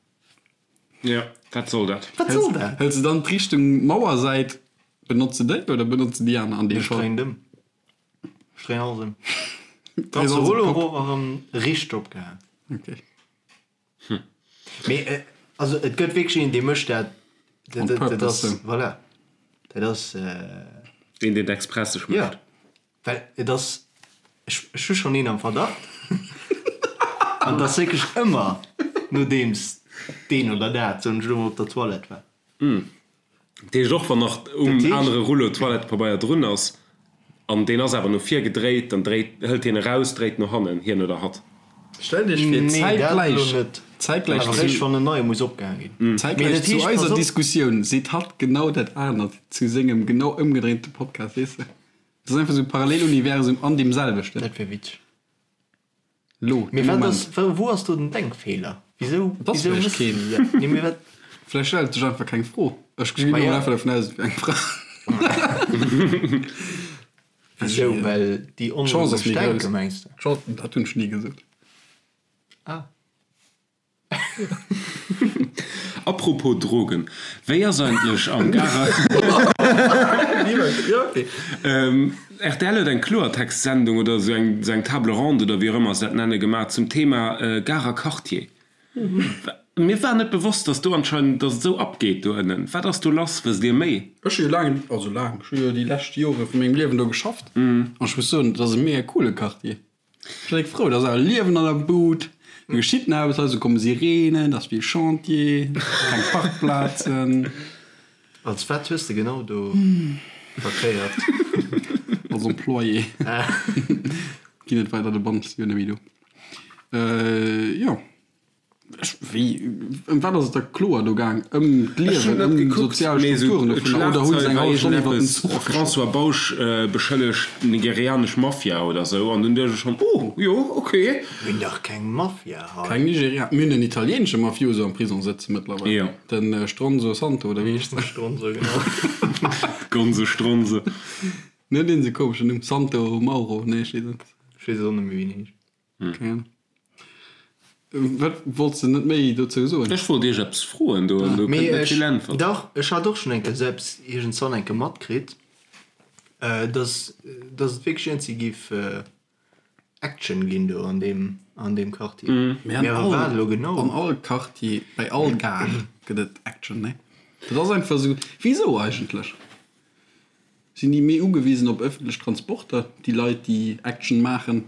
S3: Jo, wat soll dat?
S2: Wat soll dat?
S4: Hëls de dann d'Richtung Mauersäit, benotz de déi oder benotz de déi aner an deem
S2: Ech Fall? dréinen et ëm. Ech dréinen alles ëm. Dréis alles op Rollo d'Kopp. erof a rëm riicht opgehaang.
S4: Ok.
S2: Mee also et gëtt wierklech een, dee mécht dat.
S4: On
S2: Dat
S4: purpose,
S2: ass,
S4: sou.
S2: voilà, dat ass.
S3: Deen, deen et express sech
S2: Jo.
S3: mécht.
S2: Well et ass, ech hu schonn een am Verdacht, an et ass wierklech ëmmer nodeems deen oder dat, soen ech elo mol, op der Toilette war.
S3: Dat heescht, och wann nach um anere Rullo Toilettepabeier drun ass an deen ass awer no vir gedréit, dann dréit, hëlt hien eraus, dréit no hannen, hien oder hatt.
S4: Stellt Iech vir,
S2: Nee, dat elo
S4: zäitgläich,
S2: net.
S4: zäitgläich
S2: Awer
S4: zu,
S2: eréischt wann en neie muss opgehaang ginn. Mee
S4: zäitgläich
S2: dat
S4: zu
S2: heescht, pass
S4: eiser
S2: op.
S4: Diskussioun seet hatt genau dat anert zu sengem genau ëmgedréinte Podcast, weess de? Dat ass einfach esou e Paralleluniversum an deem selwechten.
S2: Dat wär witzeg.
S4: Lo,
S2: Mee
S4: de
S2: wat
S4: Moment.
S2: ass, wou ass do den Denkfeeler? Wisou,
S4: Et ass
S2: wisou
S4: vläicht
S2: méchs
S4: keen.
S2: de dat? Nee, mee wat?
S4: Vläicht stellt sech einfach keng Fro. Ech ginn
S2: Ma
S4: elo
S2: ja.
S4: einfach dervun aus, et wär eng Fra.
S2: Wisou? Well déi
S4: D'Chance ass
S2: onlogesch
S4: méi
S2: denken,
S4: grouss.
S2: mengs de?
S4: D'Chance, dat hunn ech ni gesot.
S2: Ah.
S3: Apropos Drogen, wéi ass eigentlech am Garer. Rtl huet eng Kloertext-Sendung oder esou eng esou eng Table ronde oder wéi och ëmmer se dat nenne gemaach zum Thema Garer Quartier. Mir war net bewosst, dass do anscheinend, dass et esou abgeet do ënnen. Wat ass do lass? Wësst Dir méi?
S4: Ech hu jo laang, also laang, ech hu jo déi lescht Jore vu mengem Liewen do geschafft an ech muss soen, et ass e mega coole Quartier. Ech sinn frou, et ass awer Liewen an der Bud, do geschitt nach eppes, hei komme Sireenen, et ass vill Chantier, keng Parkplazen.
S2: Als wat hues de genau do verkéiert?
S4: Als Employé. Ginn net weider, de Bann ass jo net méi do. Jo. Ech, wéi, ëm wat ass et da kloer do gaang? Ëm d'Liewen, ëm sozial Strukturen dovunner oder hu se eng hallef Stonn iwwer den Zuch geschwat?
S3: François Bausch beschëllegt d'nigerianesch Mafia oder sou an dunn duecht ech schonn, oh jo, ok.
S2: Mir hunn dach keng Mafia hei.
S4: Keng Nigeria, mir hunn en italieenesche Mafioso am Prisong sëtze mëttlerweil,
S3: Jo.
S4: den Stronzo Santo oder wéi heescht en?
S2: Stronzo, genau.
S3: Gonzo Stronzo.
S4: Net deen esou komeschen Numm, Santo Mauro, nee ech weess et net.
S2: Ech weess et och net méi wéi en heescht.
S4: Keng Ahnung. Wat wollts de net méi dozou soen?
S3: Ech wollt iech eppes froen do an do
S2: Mee
S3: kënnt net
S2: ech,
S3: vill Äntwert.
S2: dach, ech hat och schonn eng Kéier selbst iergendzwann eng Kéier matkritt, dass, dass et wierklech iergendwéi géif Action ginn do an deem, an deem Quartier.
S4: Mee an
S2: Mee awer wat
S4: all,
S2: elo genau?
S4: an all Quartier, bei all Gare gëtt et Action, nee? Dat ass einfach esou. Wisou eigentlech? Sinn déi méi ugewisen op ëffentlech Transporter, déi Leit, déi Action maachen,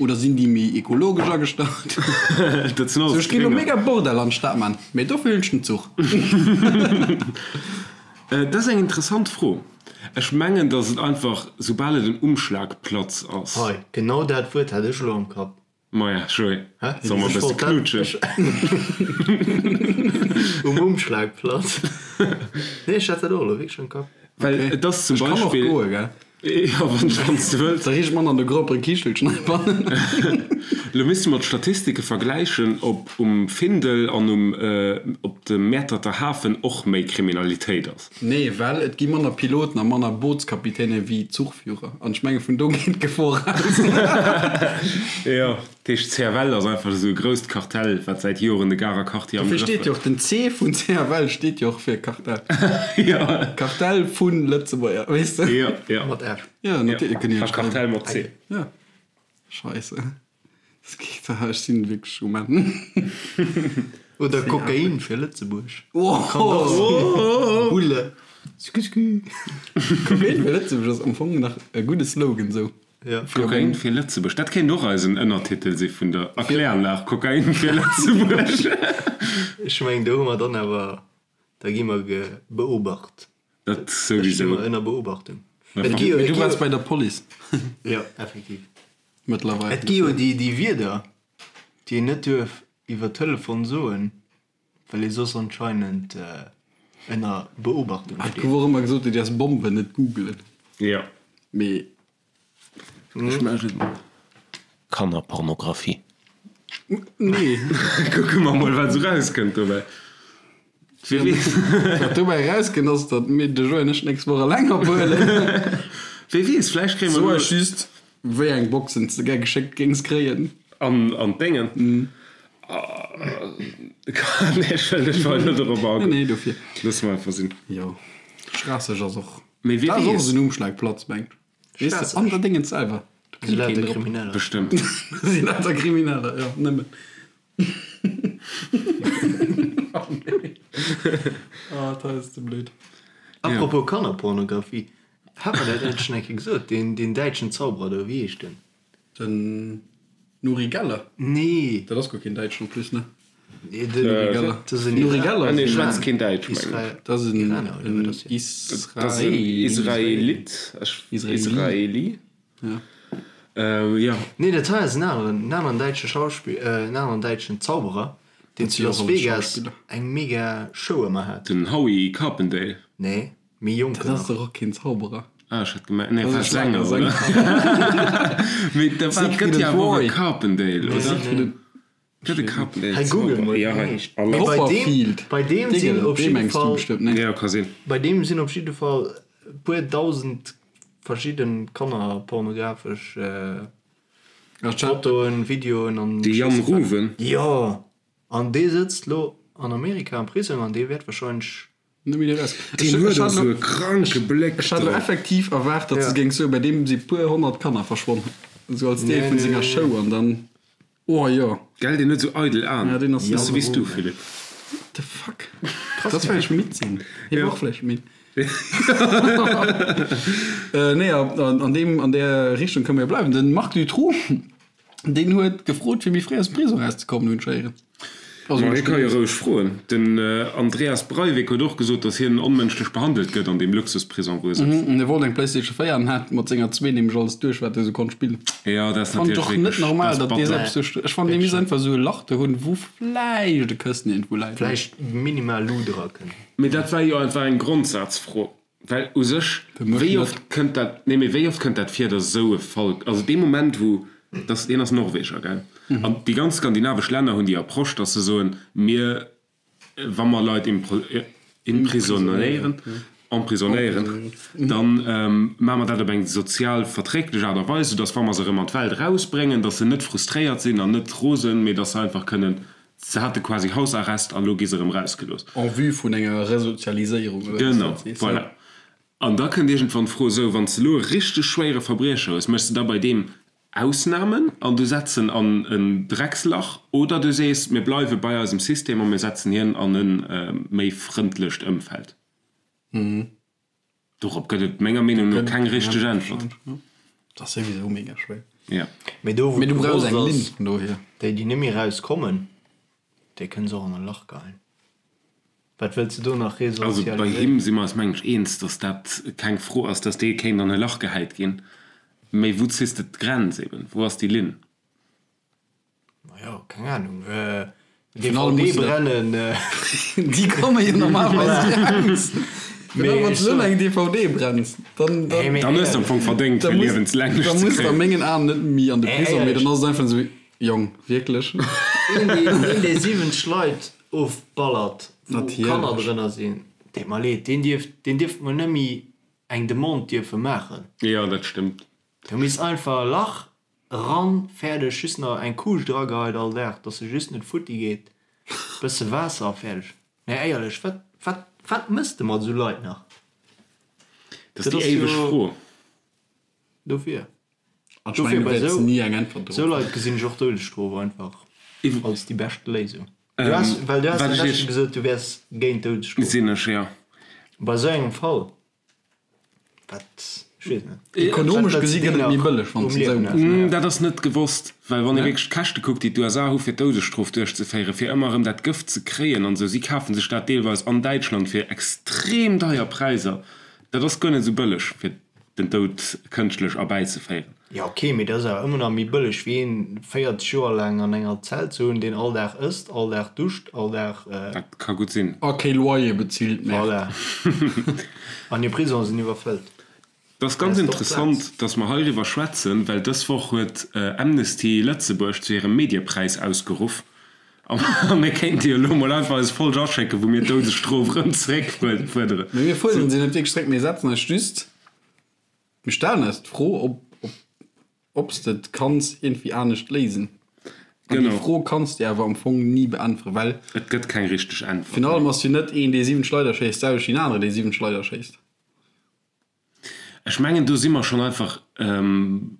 S4: oder sinn déi méi ekologesch agestallt?
S3: Dat sinn alles
S4: Sou, ech géing elo
S3: Grénger.
S4: mega Bordell an d'Stad man, mee dofir hunn ech den Zuch.
S3: Dat ass eng interessant Fro. Ech mengen, datt et einfach, soubal et en Umschlagplatz ass.
S2: Hei, genau dat Wuert hat ech elo am Kapp.
S3: Maja, Joé, solle mer e bësse knutschen?
S2: Um Umschlagplatz. Nee, ech hat dat och elo wierklech am Kapp.
S3: Well et ass zum
S4: Ech kann och
S3: Beispill.
S4: goe, gell?
S3: Jo, wann s de wëlls.
S4: Da riicht mann an de groppere Kichelchen heibannen.
S3: Elo misste mer d'Statistike vergläichen, ob um Findel an um op dem Mäerterter Hafen och méi Kriminalitéit ass.
S4: Nee, well et gi manner Piloten a manner Bootskapitäne wéi Zuchführer. An ech menge vun do geet d'Gefor aus.
S3: Jo, dat heescht CFL ass einfach esou e grousst Kartell, wat säit Joren de Garer Quartier am
S4: Dofir
S3: Grëff
S4: steet jo
S3: huet.
S4: och den C vun CFL steet jo och fir Kartell.
S3: Jo.
S4: Kartell vun Lëtzebuerger, weess de?
S3: Jo, jo.
S2: Mat F.
S4: Jo, natierlech kënne jo
S3: A Kartell mat C.
S4: Jo. Scheisse. Das geet, ech sinn wierklech um Enn.
S2: Oder Kokain fir Lëtzebuerg. Oh! Bulle. Sku sku.
S4: Kokain fir Lëtzebuerg ass am Fong nach e gudde Slogan sou.
S2: Ja.
S3: Kokain fir Lëtzebuerg, dat kéint och eisen Ënnertitel si vun der Erkläranlag, Kokain fir Lëtzebuerg.
S2: Ech mengen do hu mer dann awer, da gi mer beobacht.
S3: Dat
S2: Da sti
S3: souwisou.
S2: mer ënner Beobachtung. Et gi jo,
S4: Mee
S2: et
S4: du
S2: gi
S4: waars
S2: jo,
S4: bei der Police
S2: jo, effektiv.
S4: mëttlerweil.
S2: Et gi jo déi, déi Wierder, déi een net duerf iwwer Telefon soen, well ee soss anscheinend ënner Beobachtung
S4: Et
S2: steet.
S4: gouf och ëmmer gesot, du däerfs Bomben net googelen.
S3: Jo.
S4: Mee
S3: Ech maachen Kannerpornografie.
S4: Nee.
S3: Kucke mer mol, wat esou rauskënnt dobäi. Wie weess.
S4: Wat dobäi erauskënnt, ass, datt mir de Joé an ech d'nächst Woch eleng ophuelen.
S3: Wie weess, vläicht kréie mer
S4: Soe
S3: elo.
S4: just, wéi eng Boxen s de gär geschéckt géings kréien.
S3: An, an d'Déngen. Nee, ech wëll ech wëll net dorop agoen.
S4: Nee, nee, dofir.
S3: Loosse mer einfach sinn.
S4: Jo, Schraasseg ass och.
S3: Mee wie
S4: Dat ass och
S3: weess.
S4: esou en Umschlagplatz, mengt. Weess de, an der Déngens selwer. Do
S2: Si
S4: kënnt
S2: lauter
S4: keen drop.
S2: Krimineller.
S3: Bestëmmt.
S4: Si lauter Krimineller, jo, nëmmen. Oh nee. Oh, dat ass ze blöd.
S2: Apropos Kannerpornografie, hat mer dat net schonn eng Kéier gesot, deen, deen däitschen Zauberer do, wéi heescht den?
S4: Den Nuri Geller?
S2: Nee.
S4: Dat ass guer keen Däitschen en plus, ne?
S2: Nee, den,
S4: Nuri Geller.
S2: dat ass en
S4: Nuri
S2: Iraner.
S4: Geller
S3: Ah nee,
S4: ass en,
S3: schwätzt keen Däitsch, mengen ech.
S2: Israel,
S4: dat ass en,
S2: Iraner, oder wat
S4: en
S2: ass hien?
S3: Dat ass en
S4: Israeli.
S3: Israelit, ech,
S4: Israeli.
S3: Israeli.
S4: Ja.
S3: Jo.
S2: Nee, dat hei ass en aneren, en aneren däitsche Schauspill, en aneren däitschen Zauberer, deen
S4: Dat
S2: zu
S4: si och
S2: Las
S4: alles
S2: Vegas
S4: Schauspiller.
S2: eng mega Show ëmmer hat.
S3: Den Howie Carpendale.
S2: Nee, méi jonken
S4: Dat ass
S2: nach.
S4: dach och keen Zauberer.
S3: Ah, ech hat gemengt, nee,
S4: Dat
S3: war
S4: ass e
S3: Sänger,
S4: Schlagersänger.
S3: oder? Mee da war,
S4: Siegfried
S3: gëtt jo
S4: and
S3: awer och e
S4: Roy.
S3: Carpendale,
S2: Nee,
S3: oder?
S4: Siegfried and
S3: Gëtt e Carpendale
S2: Hei google
S3: Zauberer?
S2: mol,
S3: Ja,
S2: wéi
S3: hei.
S2: heescht.
S3: Alle.
S2: Mee bei deem,
S4: Copperfield.
S2: bei deem sinn
S4: Dingel,
S2: op
S4: dee
S2: jidde
S4: mengs du
S2: Fall,
S4: bestëmmt, ne?
S3: Ja, ka sinn.
S2: bei deem sinn op jidde Fall e puer dausend verschidden kannerpornografesch Fotoen, Videoen an
S3: De Jan Ruven.
S2: Jo, an dee sëtzt lo an Amerika am Prisong an dee wäert wahrscheinlech.
S4: Net méi eraus.
S3: Deen huet och sou e kranke Bléck
S4: Ech hat lo
S3: drop.
S4: effektiv erwaart, datt se géing soen, bei deem si puer 100 Kanner verschwonn, sou als Deel vun senger Show an dann, oh jo.
S3: Gell, deen huet sou eidel Aen.
S4: Ja, deen ass
S3: Bësse wéi s du, Philippe.
S4: What the fuck? Dat ass vläicht midd sinn. Hie war och vläicht midd. Nee, an deem, an där Richtung kënne mer jo bleiwen. Den Marc Dutroux, deen huet gefrot, fir méi fréi aus dem Prisong erauszekommen, hunn ech héieren. Also,
S3: Ma hie ka jo roueg froen. Den Andreas Breivik huet och gesot, datt hien onmënschlech behandelt gëtt an deem Luxusprisong, wou e sëtzt.
S4: En wollt eng Playstation 4 an hat mat senger zwee nämlech alles duerch, wat e sou konnt spillen.
S3: Jo, dat ass
S4: Fannen ech
S3: natierlech
S4: och net
S3: wierklech,
S4: normal,
S3: dat ass
S4: datt dee
S3: batter.
S4: selbst sou, ech fannen, dee misst einfach sou e Lach do hunn, wou vläicht e Këssen iergendwou läit.
S2: Vläicht minimal Luut erakënnt.
S3: Mee dat war jo einfach eng Grondsazfro, well u sech, wéi oft kënnt dat, nee, mee wéi oft kënnt dat vir, datt esou e Fall, also dee Moment wou, dass, hien ass Norweger, gell, an déi ganz skandinavesch Länner hunn déi Approche, datt se soen, mir, wa mer Leit imprisonéieren, emprisonnéieren, da maache mer dat op eng sozial verträglech Aart a Weis, soudatt wa mer se erëm an d'Welt erausbréngen, datt se net frustréiert sinn an net rosen, mee datt se einfach kënnen Se hate quasi Hausarrest an elo gi se erëm rausgelooss.
S4: En vue vun enger Resozialiséierung, oder wéi s
S3: Genau,
S4: dat sees.
S3: voilà. An da kënnt iergendwann d'Fro, esou, wann s de elo e richteg schwéiere Verbriecher hues, méchs de da bei deem Ausnamen an du setz en an en Dreckslach oder du sees, mir bleiwe bei eisem System a mir setzen hien an e méi frëndlecht Ëmfeld? Dorop gëtt et menger Meenung no keng richteg Äntwert.
S4: Dat ass souwisou mega schwéier.
S3: Ja.
S2: Mee do wou
S4: Mee du brauchs
S2: gewosst
S4: eng Linn
S2: ass,
S4: vun dohier.
S2: déi déi net méi raus kommen, déi kënne se och an e Lach geheien. Wat wëlls de do nach
S3: Also bei
S2: resozialiséieren?
S3: him si mer eis mengen ech eens, datt dat keng Fro ass, datt dee kéint an e Lach gehäit ginn. Mee wou ziss de d'Grenz eben? Wou ass déi Linn?
S2: Majo, keng Ahnung.
S4: Final
S2: DVD
S4: muss dat-
S2: brennen.
S4: Déi komme jo normalerweis raus. Mee wann du eng DVD brenns, dann, dann,
S3: Dann hues de am Fong verdéngt, fir liewenslänglech
S4: dann
S3: ze
S4: muss de a
S3: kréien.
S4: mengen Aen net méi an de Prisong, mee dann ass et einfach esou, Jong, wierklech?
S2: Een, deen, dee 70 Leit ofballert, wou
S4: Natierlech.
S2: Kanner drënner sinn, deet mer leed, deen dierft, deen dierft mol net méi eng Demande dierfe maachen.
S3: Jo, dat stëmmt.
S2: Do misst einfach e Lach Eran, fäerdeg, just nach eng Kuuscht erageheit all Dag, dass se just net futti geet, bësse Waasser a fäerdeg. Nee éierlech, wat, wat, wat mëss de mat esou Leit nach?
S3: Dat ass déi éiweg Fro.
S2: Dofir.
S4: An ech mengen,
S2: Dofir
S4: du
S2: bei
S4: wäerts
S2: esou
S4: ni eng Äntwert
S2: esou
S4: dorop
S2: Leit
S4: fannen.
S2: gesinn ech och d'Doudesstrof einfach als déi bescht Léisung. Du has, well du has
S3: Wat
S2: dat
S3: ech
S2: leschte
S3: iech.
S2: gesot, du wäers géint d'Doudesstrof.
S3: Sinn ech, jo.
S2: Bei esou engem Fall, wat, ech weess net.
S4: Ekonomesch
S2: Wat wëlls
S4: gesi
S2: de
S4: gëtt
S2: deem
S4: et méi
S2: nach
S4: bëlleg, wann
S2: um
S4: s de esou
S2: Liewen
S4: méchs.
S2: halen?
S3: Dat ass net gewosst, well wann ee wierklech d'Käschte kuckt, déi d'USA hu fir d'Doudesstrof duerchzeféieren, fir ëmmer erëm dat Gëft ze kréien an esou, si kafe sech dat deelweis an Däitschland fir extrem deier Präisser. Dat ass guer net esou bëlleg, fir den Doud kënschtlech erbäizeféieren.
S2: Jo ok, mee dat ass awer ëmmer nach méi bëlleg wéi een 40 Joer laang an enger Zell ze hunn, deen all Dag ësst, all Dag duscht, all Dag.
S3: Dat ka gutt sinn.
S4: A kee Loyer bezilt, Merde.
S2: Voilà. An hir Prisongen sinn iwwerfëllt.
S3: Et ass ganz interessant, dass mer heiriwwer schwätzen, well dës Woch huet Amnesty Lëtzebuerg zu hirem Mediepräis ausgeruff. A mir kéinte jo elo mol einfach eis Folg aschécken, wou mir d'Doudesstrof erëm zeréckfuerderen.
S4: Mee mir fuerderen se net wierklech zeréck, mir setzen eis just, mir stellen eis d'Fro, ob, ob, ob s de et kanns iergendwéi anescht léisen. An déi Fro kanns de awer am Fong ni beäntweren, well.
S3: Et gëtt keng richteg Äntwert.
S4: Virun allem ass jo net een, dee 7 Schleider schéisst, d'selwecht wéi en aneren, dee 7 Schleider schéisst.
S3: Ech mengen, do si mer schonn einfach.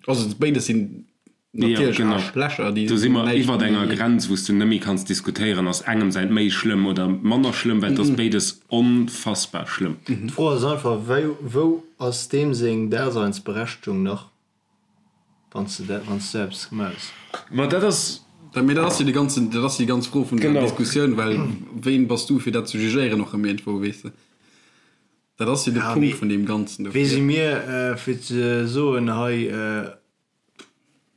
S4: Also béides sinn natierlech Aarschlächer, déi
S3: Do si mer
S4: näischt
S3: iwwert enger
S4: méi.
S3: Grenz, wou s du net méi kanns diskutéieren, ass engem säint méi schlëmm oder manner schlëmm, well et ass béides onfassbar schlëmm.
S2: D'Fro ass einfach, wéi, wou ass deem seng Daseinsberechtegung nach, wann s de dat, wann s du eppes gemaach hues?
S3: Ma dat ass.
S4: Mee dat ass jo déi ganzen, dat ass jo déi ganz Fro vun der Diskussioun, well ween bass du, fir dat ze jugéieren och erëm iergendwou, weess de? Dat ass jo de Punkt vun deem Ganzen
S2: dofir. Wie si mir, fir ze soen, hei,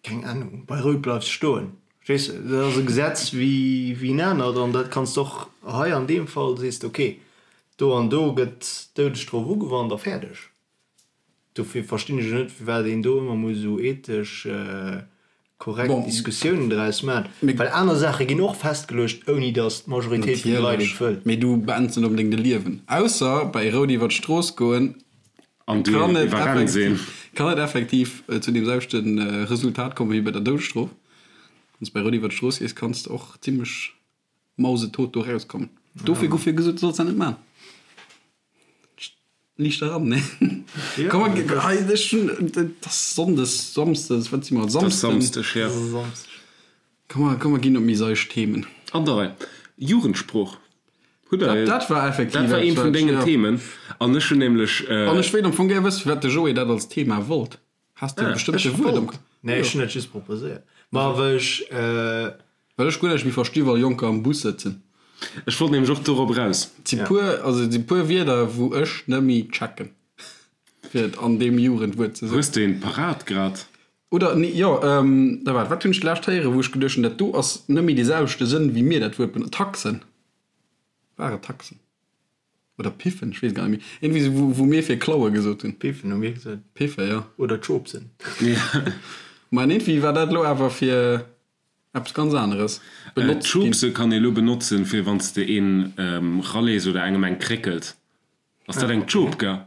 S2: keng Ahnung, bei Rout bleifs stoen. Verstees de? Dat ass e Gesetz wéi en anert an dat kanns de och hei an deem Fall, sees de, okay, do an do gëtt d'Doudesstrof ugewannt a fäerdeg. Dofir verstinn ech och net, firwat een do ëmmer muss esou ethesch korrekt Diskussiounen draus maachen, well aner Saache ginn och festgeluecht, ouni datt d'Majoritéit vun de Leit et wëll.
S4: Mee du beends net onbedéngt e Liewen. Ausser bei Rout iwwer d'Strooss goen
S3: An du
S4: kann et
S3: iwwerrenns een.
S4: effektiv, kann et effektiv zu deem selwechte Resultat kommen wéi bei der Doudesstrof. Wann s de bei Rout iwwer d'Strooss gees, kanns de och zimmlech mausetot do rauskommen. Dofir gouf jo gesot, du solls dat net maachen. Liicht eran, ne? Komm, hei, ech hunn, et ass Sonndes, Samsdes, wat si mer?
S3: Et ass
S4: Samsden.
S3: Samsdeg, jo.
S4: Komm, mer, komm, mer ginn op méi seicht Themen.
S3: An der Rei. Jugendsprooch. Hutt Der.
S4: Dat war effektiv
S3: Dat war eent vun dengen Themen. An ech hunn nämlech.
S4: An ech wéilt am Fong gär wëssen, firwat de Joé dat als Thema wollt. Has de e bestëmmte Wuert am Kapp?
S2: Nee, ech hunn dat just proposéiert. Ma well ech.
S4: Well ech guer näischt méi versti wa Jonker am Bus sëtzen.
S3: Ech wollt nämlech och dorop eraus.
S4: Et si puer, also et si puer Wierder wou ech net méi checken, fir et an deem Jugendwuert ze soen.
S3: Hues de eent parat grad?
S4: Oder nee, jo, da waart, wat hunn ech d'lescht héieren, wou ech geduecht hunn, dat do ass net méi dee selwechte Sënn wéi mir dat Wuert benotzen. Taxen. War et Taxen? Oder Piffen, ech weess gar net méi. Iergendwéi sou, wou, wou mir fir klaue gesot hunn.
S2: Piffen hu mir gesot.
S4: Piffe, jo.
S2: Oder Chopsen.
S4: Ma an iergendwéi war dat elo awer fir eppes ganz aneres benotzt ginn.
S3: Chopse kann ee lo benotzen, fir wann s de een ralees oder engem eng kréckels. Ass dat eng Chope, gell?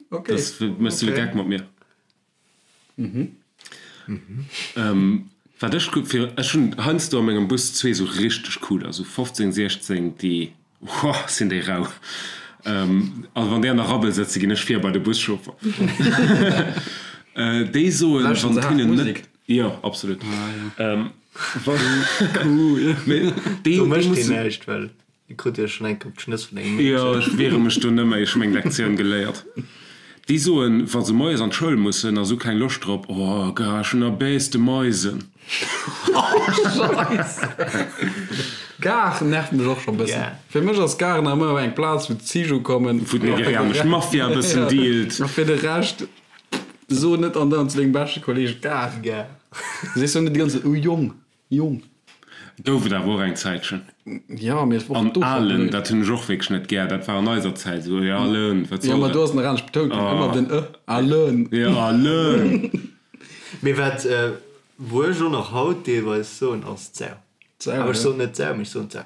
S4: Okay.
S3: Das méchs du de Geck mat mir. Wat ech gutt fir, ech hunn heiansdo a mengem Bus zwee sou richteg cooler, sou 15, 16, déi, whoa, sinn déi rau. Also wann déi an der Rabbel sëtzen, ginn ech vir bei de Buschauffer. Déi soen,
S4: Lauschteren
S3: wann
S4: se
S3: et
S4: haart
S3: hinnen net,
S4: Musek?
S3: jo, absolut.
S4: Ah,
S3: Wann, mee déi,
S2: Do
S3: déi
S2: mécht deen
S3: mussen.
S2: näischt, well Dir krut jo schon eng Kéier op d'Schnëss vun engem Meedchen.
S3: Jo, ech wiere mech do net méi, ech hu meng Lektioun geléiert. Déi soen, wa se moies an d'Schoul mussen a se hu keng Loscht drop, Oh, gar, ech hunn erbäs de Meisen.
S4: Scheisse! Gare nervt mech och scho bëssen. Fir mech ass Gare nach ëmmer eng Plaz, wou d'Zich ukommen.
S3: Wou d'nigerianesch Mafia e bëssen dealt.
S4: A fir de Rescht, so net andauernd zu dengem beschte Kolleeg Gare.
S2: Gare.
S4: Du sees jo net déi ganz Zäit, Oh Jong, Jong.
S3: Gouf et awer och eng Zäitchen.
S4: Jo, mee et war
S3: An
S4: och do scho
S3: Alen,
S4: blöd.
S3: dat hunn ech och wierklech net gär, dat war an eiser Zäit esou, jo Alen, wat
S4: Jo,
S3: soll
S4: ma do
S3: dat?
S4: ass nach anescht betount ginn, ëmmer den e, Alen.
S3: Jo, Alen.
S2: Mee wat, wou ech och nach haut deelweis soen, ass d'Sau.
S4: D'Sau,
S2: Awer ech
S4: jo.
S2: soen net d'Sau, mee ech soen d'Sau.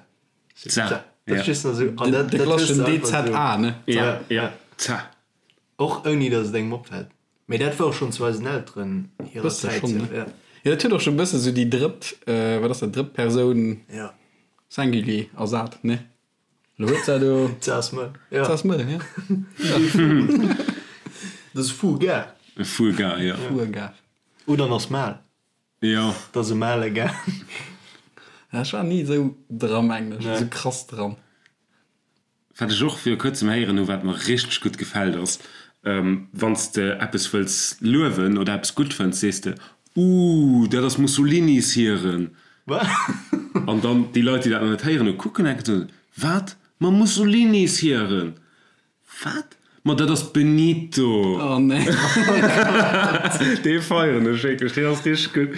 S3: D'Sau,
S2: Dat
S3: jo.
S2: ass just nach esou, an dat,
S4: De
S2: dat hues
S4: klasseschen
S2: de einfach esou.
S4: DZA, ne?
S3: Ja,
S2: Ja,
S3: ja,
S2: ja.
S3: d'Sau.
S2: Och ouni datt et engem opfält. Mee dat war och schonn zu eisen Elteren hirer
S4: Bësse
S2: Zäit
S4: schonn,
S2: sou,
S4: ne?
S2: ja.
S4: Jo, dat huet och scho bësse sou déi drëtt, wat ass dat, drëtt Persoun
S2: Ja.
S4: Singulier ersat, ne? Lo huet se do.
S2: Ze ass mëll, ja.
S4: Ze ass mëll, ja.
S2: Dat ass Fuga.
S3: Fuga, ja.
S4: Fuga.
S2: Oder en ass male.
S3: Jo.
S2: Et ass e male Gang.
S4: Ech war ni esou dra mengen ech, esou krass dran.
S3: Wat ech och viru kuerzem héieren hu wat mer richteg gutt gefält ass, wann s de eppes wëlls luewen oder eppes gutt fënns, sees de, Ooh, dat ass Mussolinis hiren. An dann déi Leit, déi dat nach net héieren hu, kucken enke soen, Wat? Ma Mussolinis hiren? Wat? Ma dat ass Benito!
S4: Oh nee.
S3: Dee feieren ech wierklech, deen ass richteg gutt.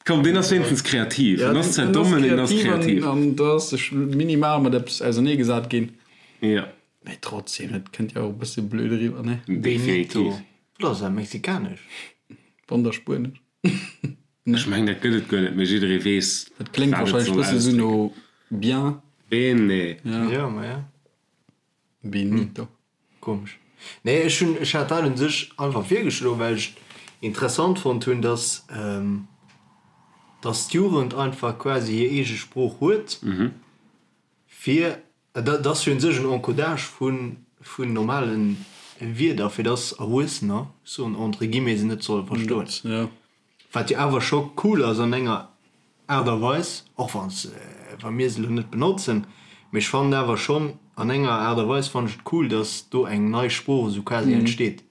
S3: Komm, deen ass wéinstens kreativ. En ass zwar domm, mee en ass kreativ.
S4: An do ass sech minimal mat eppes auserneegesat ginn.
S3: Jo.
S4: Mee trotzdem, dat kënnt jo och e bësse blöd eriwwer, ne?
S3: Definitiv.
S2: Benito. Wat ass dat, mexikanesch?
S4: Wann da spuenesch.
S3: Ech mengen, dat gëtt et guer net, mee jidderee weess,
S4: Dat kléngt
S3: wat et
S4: warscheinlech
S3: soll
S4: bësse sou no
S3: ausdrécken.
S4: bien.
S3: Bene.
S2: Jo, ma ja.
S4: Benito.
S2: Komesch. Nee, ech hunn, ech hat dat un sech einfach virgeschloen, well ech et interessant fonnt hunn, dass, dass d'Jugend einfach quasi hir eege Sprooch huet, fir, dat ass jo un sech en Encodage vu vun normale Wierder, fir dass Erwuessener, ech soen entre guillemets, se net solle verstoen. Wat jo awer scho cool ass an enger Aart a Weis, och wann s, wa mir se elo net benotzen, mee ech fannen awer schonn an enger Aart a Weis fannen ech et cool, dass do eng nei Sprooch esou quasi entsteet.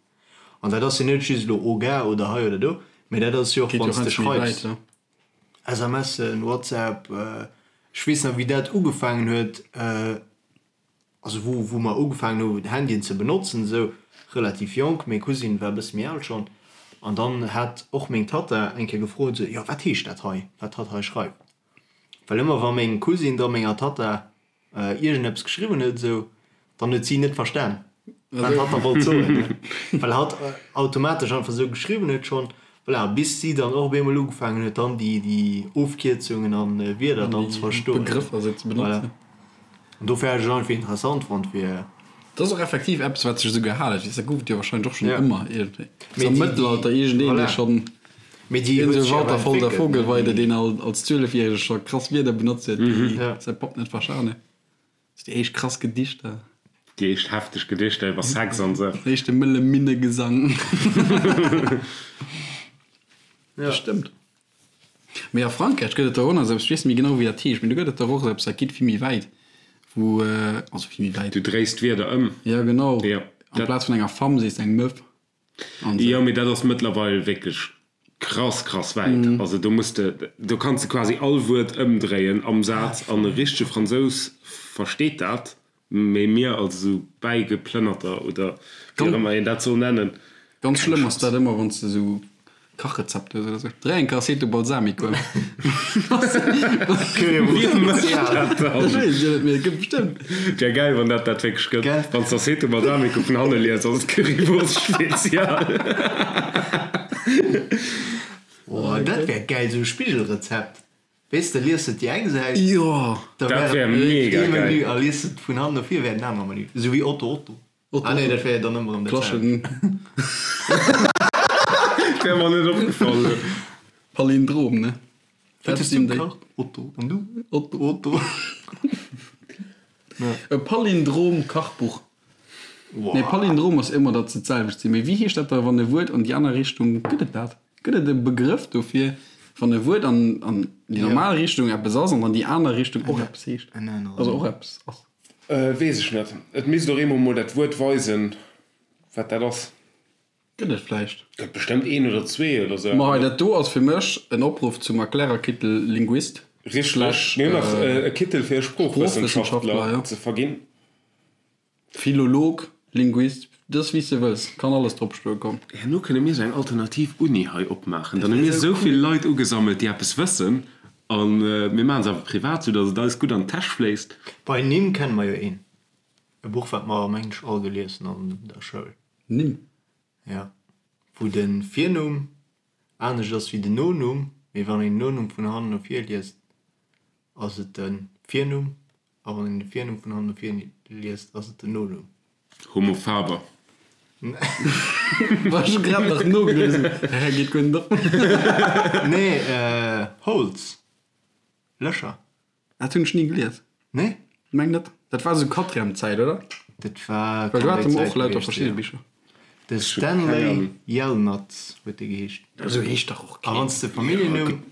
S2: An dat ass jo net just elo Oga oder hei oder do, mee dat ass jo och
S4: Geet jo
S2: wann s de
S4: heiansdo méi wäit,
S2: schreifs,
S4: ja.
S2: SMSen, WhatsApp, ech weess nach wéi dat ugefaangen huet, also wou wou mer ugefaangen hu Handyen ze benotzen esou relativ jonk, meng Cousine war e bësse méi al schonn, an dann hat och meng Tatta eng Kéier gefrot esou, jo wat heescht dat hei, wat hatt hei schreift, well ëmmer wa meng Cousine da menger Tatta iergendeppes geschriwwen huet esou, dann huet si net verstan wat hatt da wollt soen, ne, well hatt automatesch einfach esou geschriwwen huet schonn, voilà, bis si dann och op eemol ugefaangen huet dann déi déi Ofkierzungen an Wierder dann ze verstoen,
S4: Begrëffer esou ze
S2: voilà.
S4: benotzen.
S2: An dofir hat ech et einfach interessant fonnt fir.
S4: Dat ass och effektiv eppes wat sech esou gehalen huet, dat gouf et jo wahrscheinlech och schonn ëmmer iergendwéi.
S2: Mee
S4: Am
S2: déi,
S4: Mëttelalter iergendeen
S2: voilà.
S4: dee schonn,
S2: Mee déi
S4: iergend
S2: huet
S4: esou
S2: sech awer
S4: Walter von der
S2: entwéckelt, ne?
S4: Vogelweide, deen als Zwielefjärege scho krass Wierder benotzt huet, déi
S2: Ja.
S4: säi Papp net verstan huet. Déi éischt krass Gedichter.
S3: Déi éischt hefteg Gedichter iwwer Sex an esou.
S4: Den éischte mëlle Minnegesang.
S2: Ja.
S4: Dat stëmmt. Mee a Frankräich gëtt et der och nach esou eppes, ech weess net méi genau wéi dat heescht, mee do gëtt et der och esou eppes, dat geet vill méi wäit, wou, also vill méi wäit.
S3: Du dréis d'Wierder ëm.
S4: Jo, genau.
S3: Jo, dat.
S4: Amplaz vun enger Femme sees de eng Meuf an esou.
S3: Jo, mee dat ass mëttlerweil wierklech krass, krass wäit. Also do muss de, do kanns de quasi all Wuert ëmdréien am Saz an e richtege Fransous versteet dat. Mee mir als esou Bäigeplënnerter oder wéi och ëmmer een dat soll nennen,
S4: Ganz
S3: keng
S4: schlëmm ass
S3: Chance.
S4: dat ëmmer wann s de esou Kachrezepter hues oder esou. Dréi eng Aceto Balsamico ëm.
S3: Wie mécht dat dann?
S4: Ech weess et jo net, mee et gëtt bestëmmt.
S3: Wär gäil wann dat dat wierklech gëtt.
S2: Gell?
S3: Wann s de Aceto Balsamico vun hanne lies, ass et Currywurst Spezial.
S2: Oh, dat wär gäil, esou e Spigelrezept. Weess de, lies de déi eng Säit,
S4: Jo!
S2: da
S3: Dat
S2: wär
S3: wär
S2: et
S3: mega
S2: ee Menü
S3: geil.
S2: a lies de vun hannen no vir, wär et en aner Menü. Esou wéi Otto Otto.
S4: Otto
S2: Ah nee,
S4: Otto.
S2: dat wär jo dann ëmmer erëm dat selwecht.
S4: Klaschen.
S3: Wär mer net opgefall elo.
S4: Palindrom, ne?
S2: Wat
S4: Dat
S2: hues du
S4: sinn déi.
S2: gekacht? Otto. An du?
S4: Otto.
S2: Otto.
S4: E Palindrom-Kachbuch. Nee, Palindrom ass ëmmer, datt se d'selwecht sinn. Mee wéi heescht dat da, wann e Wuert an déi aner Richtung, gëtt et dat? Gëtt et e Begrëff dofir, wann e Wuert an déi normal Richtung eppes ass an an déi aner Richtung och eppes heescht? Also och eppes ass?
S3: Weess ech net. Et misst och eemol mol dat Wuert weisen, wat dat ass.
S4: Gëtt et vläicht.
S3: Gëtt bestëmmt een oder zwee oder sou.
S4: Ma hei, dat do ass fir mech en Opruff zum Erklärerkittel Linguist.
S3: Richteg.
S4: Slash
S3: Mir hunn nach e Kittel fir e
S4: Sproochwëssenschaftler,
S3: Sproochwëssenschaftler
S4: jo.
S3: ze verginn.
S4: Philolog, Linguist, dës wéi s de wëlls, kann alles drop stoe komm.
S3: Herno kënne mir sou eng alternativ Uni hei opmaachen. Dann hu mir esou vill Leit ugesammelt, déi eppes wëssen, a mir maachen se awer privat, sou datt et eis gutt an d'Täsch fléisst.
S2: Bei Nimm kenne mer jo een. E Buch wat mer mengen ech all gelies hunn an der Schoul.
S4: Nimm?
S2: Ja. Wou de Virnumm anescht ass wéi den Nonumm, mee wann een den Nonumm vun hannen no vir liest, ass et de Virnumm A wann een de Virnumm vun hannen no vir liest, ass et den Nonumm.
S3: Homo faber.
S4: War ech grad nach nogelies. Hä, geet guer net op.
S2: Nee, Holes. Lächer.
S4: Dat hunn ech ni gelies.
S2: Nee?
S4: Meng net. Dat war esou Quatrième-Zäit, oder?
S2: Dat war
S4: Well do
S2: kann
S4: hate
S2: déi
S4: mer och
S2: Zäit
S4: lauter
S2: gewiescht
S4: verschidde
S2: sinn.
S4: Bicher.
S2: De Stanley Yelnats huet dee geheescht.
S4: Esou heescht dach och
S2: keen. A wann s de Familljennumm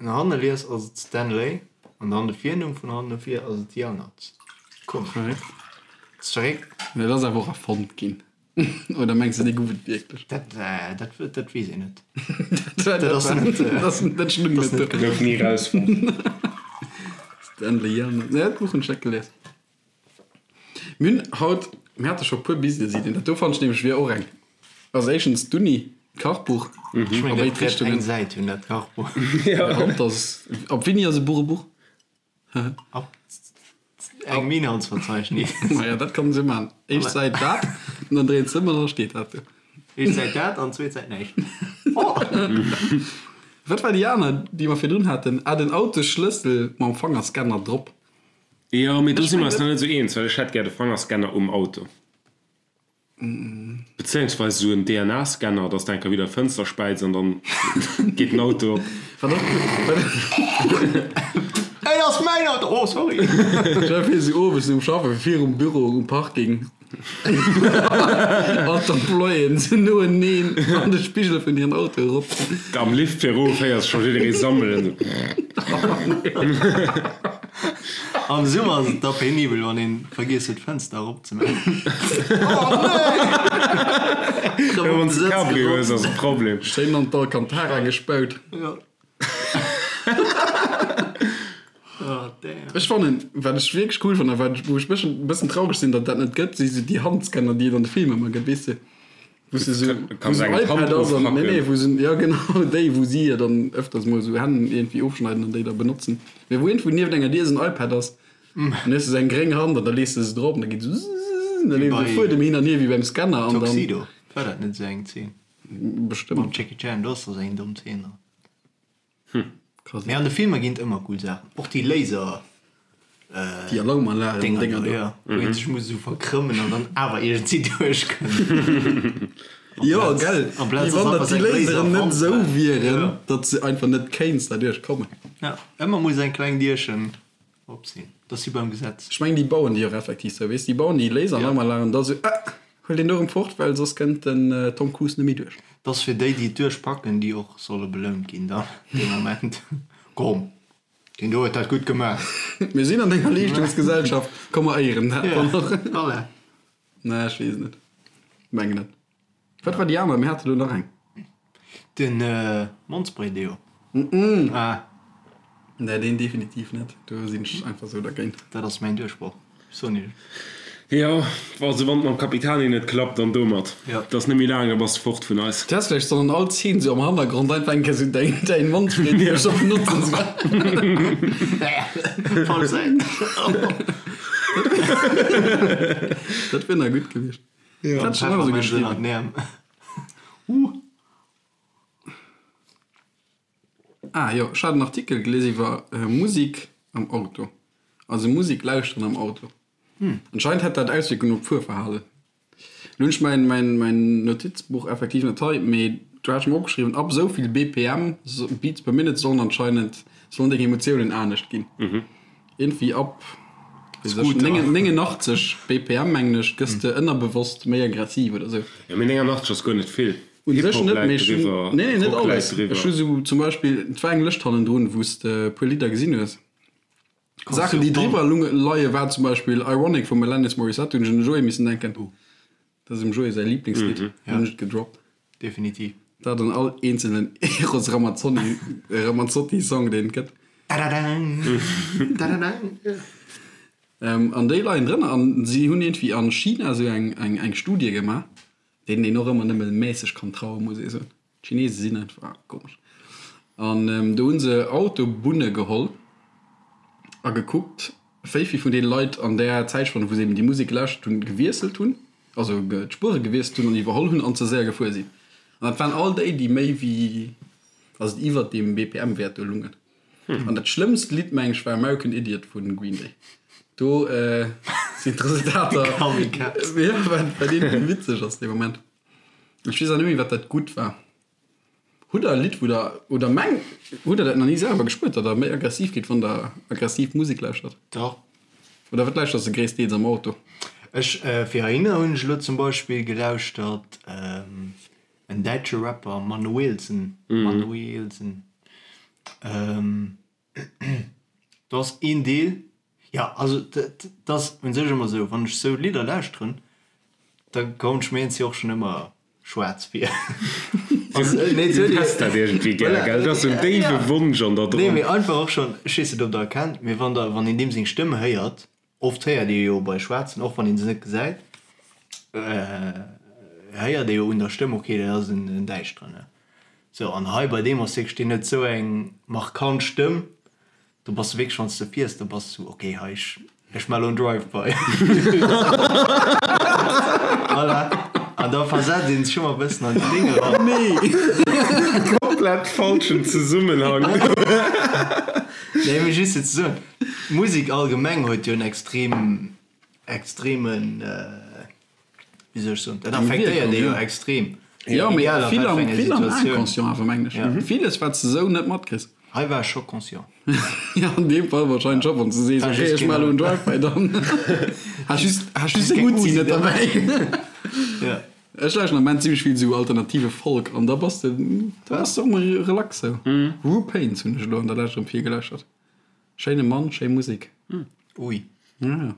S2: no hanne lies, ass et Stanley, an dann de Virnumm vun hannen no vir ass et Yelnats. Komesch. Ass verréckt.
S4: Mee dat ass awer och erfonnt ginn. Oder mengs de, dee gouf et wierklech?
S2: Dat, dat, dat weess een net.
S4: Dat ass net, dat stung net do.
S3: Gouf ni erausfonnt.
S4: Stanley Yelnats. Nee, dat Buch hunn ech net gelies. Mir hunn haut, mir hate scho puer Business-Iddien. Dat do fannen ech nämlech wier och eng. Also éischtens d'Uni, d'Kachbuch
S2: Ech
S4: a
S2: mengen,
S4: béid
S2: dat wäert eng
S4: Richtungen.
S2: Säit hunn, dat Kachbuch.
S4: Ab dass, ab wéini ass e Buch e Buch?
S2: Ab engem Inhaltsverzeichnis.
S4: Maja, dat kann se man. Éischt Säit dat, an dann dréint se ëm an da steet dat do.
S2: Éischt Säit dat an zweet Säit näischt.
S4: Wat war déi aner, déi mer virdrun haten? Ah, den Autosschlëssel mam Fangerscanner drop.
S3: Jo, mee do si mer eis nach net esou eens, well ech hätt gär de Fangerscanner um Auto. Bezéiungsweis esou en DNA-Scanner, dass de eng Kéier widder d'Fënster späiz an dann geet den Auto op.
S2: Et ass mäin Auto! Oh, sorry!
S4: Stell dir vir, si owes nom Schaffen virum Büro um Parking, all d'Employéen sinn noeneen an de Spigel vun hiren Autoe rop.
S3: Am Lift fir erof héiers scho jidderee sammelen.
S2: Am Summer ass et da penibel, wann een vergiess huet d'Fënster erop ze maachen. Oh nee!
S3: Jo, wann s de Cabrio hues, ass e Problem.
S4: Schéin an d'Alcantara gespaut.
S2: Jo. Oh damn.
S4: Ech fannen, wat ech wierklech cool fannen a wat ech, wou ech bëssen, bëssen traureg sinn, datt dat net gëtt, si sou déi Handscanner, déi et an de Filmer ëmmer gëtt, weess de, wou s de sou, wou sou en iPad ass an, nee, nee, wou se, ja genau, déi, wou si jo dann ëfters mol sou Hänn iergendwéi ofschneiden an déi da benotzen, mee wou iergendwou nieft enger Dier esou en iPad ass an du hues esou eng gréng Hand an da lees de se drop an da geet esou zzzz an da leeft e Fuedem hin an hier wéi beim Scanner an dann.
S2: Tuxedo, war dat net esou eng Zeen?
S4: Bestëmmt.
S2: Mam Jackie Chan, do ass der esou eng domm Zeen dran.
S4: Hm, krass.
S2: Mee an de Filmer ginn et ëmmer cool Saachen. Och déi Laser.
S4: Déi Alarmanlagen
S2: Dinger
S4: Dénger
S2: do,
S4: do.
S2: jo. Wou een sech muss esou verkrëmmen an dann awer iergendwéi duerchkënnt.
S4: Jo, gell.
S2: Amplaz
S4: Wéi
S2: ass
S4: wann
S2: einfach
S4: datt déi
S2: seng
S4: Laseren net
S2: Laserwand
S4: esou
S2: war.
S4: wieren,
S2: Jo.
S4: datt se einfach net kéints derduerch kommen.
S2: Ja, ëmmer muss eng kleng Dierchen op sinn. Dat ass wéi beim Gesetz.
S4: Ech mengen, déi bauen déi och effektiv sou, weess, déi bauen déi Laseralarmanlagen da sou, ah, huel deen do erëm fort, well soss kënnt den Tom Cruise net méi duerch.
S2: Dat ass fir déi, déi et duerchpacken, déi och solle belount ginn dann dee Moment. Komm, deen do huet dat gutt gemaach.
S4: Mir sinn an enger Leeschtungsgesellschaft, komm mer éieren dat dann och.
S2: Voilà.
S4: Nee, ech weess et net. Mengen net. Wat war déi aner? Mir hate lo nach eng.
S2: Den Mondspray-Deo. Ah.
S4: Nee, deen definitiv net. Do sinn ech einfach sou dergéint.
S2: Dat ass mäin Duerchbroch. Soen ech.
S3: Jo, also wann et mam Capitani net klappt, dann domat. Et ass net méi laang, da bass de fort vun eis.
S4: Du häss vläicht sollen an all Zeen sou am Hannergrond einfach eng Kéier sou däin däin Mondspray-Deo scho benotzen.
S2: Falsch Säit.
S4: Dat wier nach gutt gewiescht. Dat hat schon ëmmer sou geschriwwen. Ah jo, ech hat en Artikel gelies iwwer Musik am Auto. Also Musik lauschteren am Auto. Anscheinend hätt dat Auswierkungen op d'Fuerverhalen. Lo hunn ech mäin, mäin, mäin Notizbuch effektiv net hei, mee do hat ech mer opgeschriwwen, ab esou vill BPM, Beats per Minute, sollen anscheinend, sollen deng Emotiounen anescht ginn. Iergendwéi ab 89 BPM, mengen ech, gëss de ënnerbewosst méi aggressiv oder sou.
S3: Jo, mee 89 ass guer net vill.
S4: Un sech
S3: Hip-Hop
S4: net,
S3: läit
S4: mee ech hunn,
S3: driwwer,
S4: nee, nee, net
S3: Rock läit
S4: alles.
S3: driwwer.
S4: Ech hu sou zum Beispill, et war eng Lëscht hannendrun, wou s de e puer Lidder gesinn hues. Saachen, déi driwwer leie war zum Beispill Ironic vum Alanis Morissette, hunn ech un de Joé missen denken. Dat ass dem Joé säi Liblingslidd, hunn ech et gedroppt.
S2: Definitiv.
S4: Dat an all eenzelnen Eros Ramazzotti, Ramazzotti Song, deen et gëtt. An déi leien drënner an si hunn iergendwéi a China esou eng, eng, eng Studie gemaach, deenen een och ëmmer nëmme mässeg kann trauen, muss ee soen. D'Chinese sinn einfach komesch. An do hu se Autobunne geholl a gekuckt, wéi vill vun deene Leit an där Zäitspann, wou se eben déi Musek gelauschtert hunn, gewiesselt hunn, also d'Spuere gewiesselt hunn an iwwerholl hunn an ze séier gefuer sinn. An dat waren all déi, déi méi wéi, also iwwert deem BPM-Wäert do lungen. An dat schlëmmst Lidd, meng ech, war American Idiot vu Green Day. Do sinn d'Resultater, jo, wat iergendwéi witzeg ass dee Moment. Ech weess och net méi wat dat gutt war. Hutt der e Lidd wou der, oder meng, hutt der dat nach ni selwer gespuert, datt der méi aggressiv gitt wann der aggressiv Musek lauschtert?
S2: Dach.
S4: Oder wat lauschters de gréisstdeels am Auto?
S2: Ech, fir heihinner hunn ech elo zum Beispill gelauschtert. En däitsche Rapper, Manuellsen, Manuellsen. Do ass een Deel, jo also et ass un sech ëmmer esou, wann ech sou Lidder lauschteren, da kommen ech mir iergendwéi och schonn ëmmer schwaarz vir.
S3: Du häss dat iergendwéi gär, gell? Dat ass esou en déiwe Wonsch an der
S2: dran. Nee, mee einfach och schonn, ech weess net ob der erkennt, mee wann der, wann een deem seng Stëmm héiert, Oft héiert ee jo bei Schwaarzen, och wann ee se net gesäit, héiert ee jo un der Stëmm, ok, dat ass en Däischteren. Sou, an hei bei deem ass wierklech, deen huet sou eng markant Stëmm, do bass de wierklech, wann s de fiers, da bass du, ok, hei, ech, ech maache lo en Drive-by. Voilà, an da versetzt ee sech ëmmer e bëssen an déi Déng eran.
S3: Nee! Komplett falschen Zesummenhang.
S2: Nee, mee just fir ze soen, D'Musek allgemeng huet jo en extrem, extremen, wéi soll ech soen, dat affektéiert ee jo extrem.
S4: Jo, mee vill am, vill am Inconscient awer, mengen ech. Villes, wat s de esou net matkriss.
S2: Hei war ech scho conscient.
S4: Jo, an deem Fall warscheinlech scho, wann s de sees, ok, ech maache elo en Drive-by, dann has just, has just deng Uzi net derbäi.
S2: Jo.
S4: Ech lauschten am Ament zimmlech vill esou alternative Folk an da bass de, da bass de och mol relax esou. Ru Paints hunn ech elo an der Lescht erëm vill gelauschtert. Schéine Mann, schéi Musek.
S2: Ui.
S4: Ja, ja.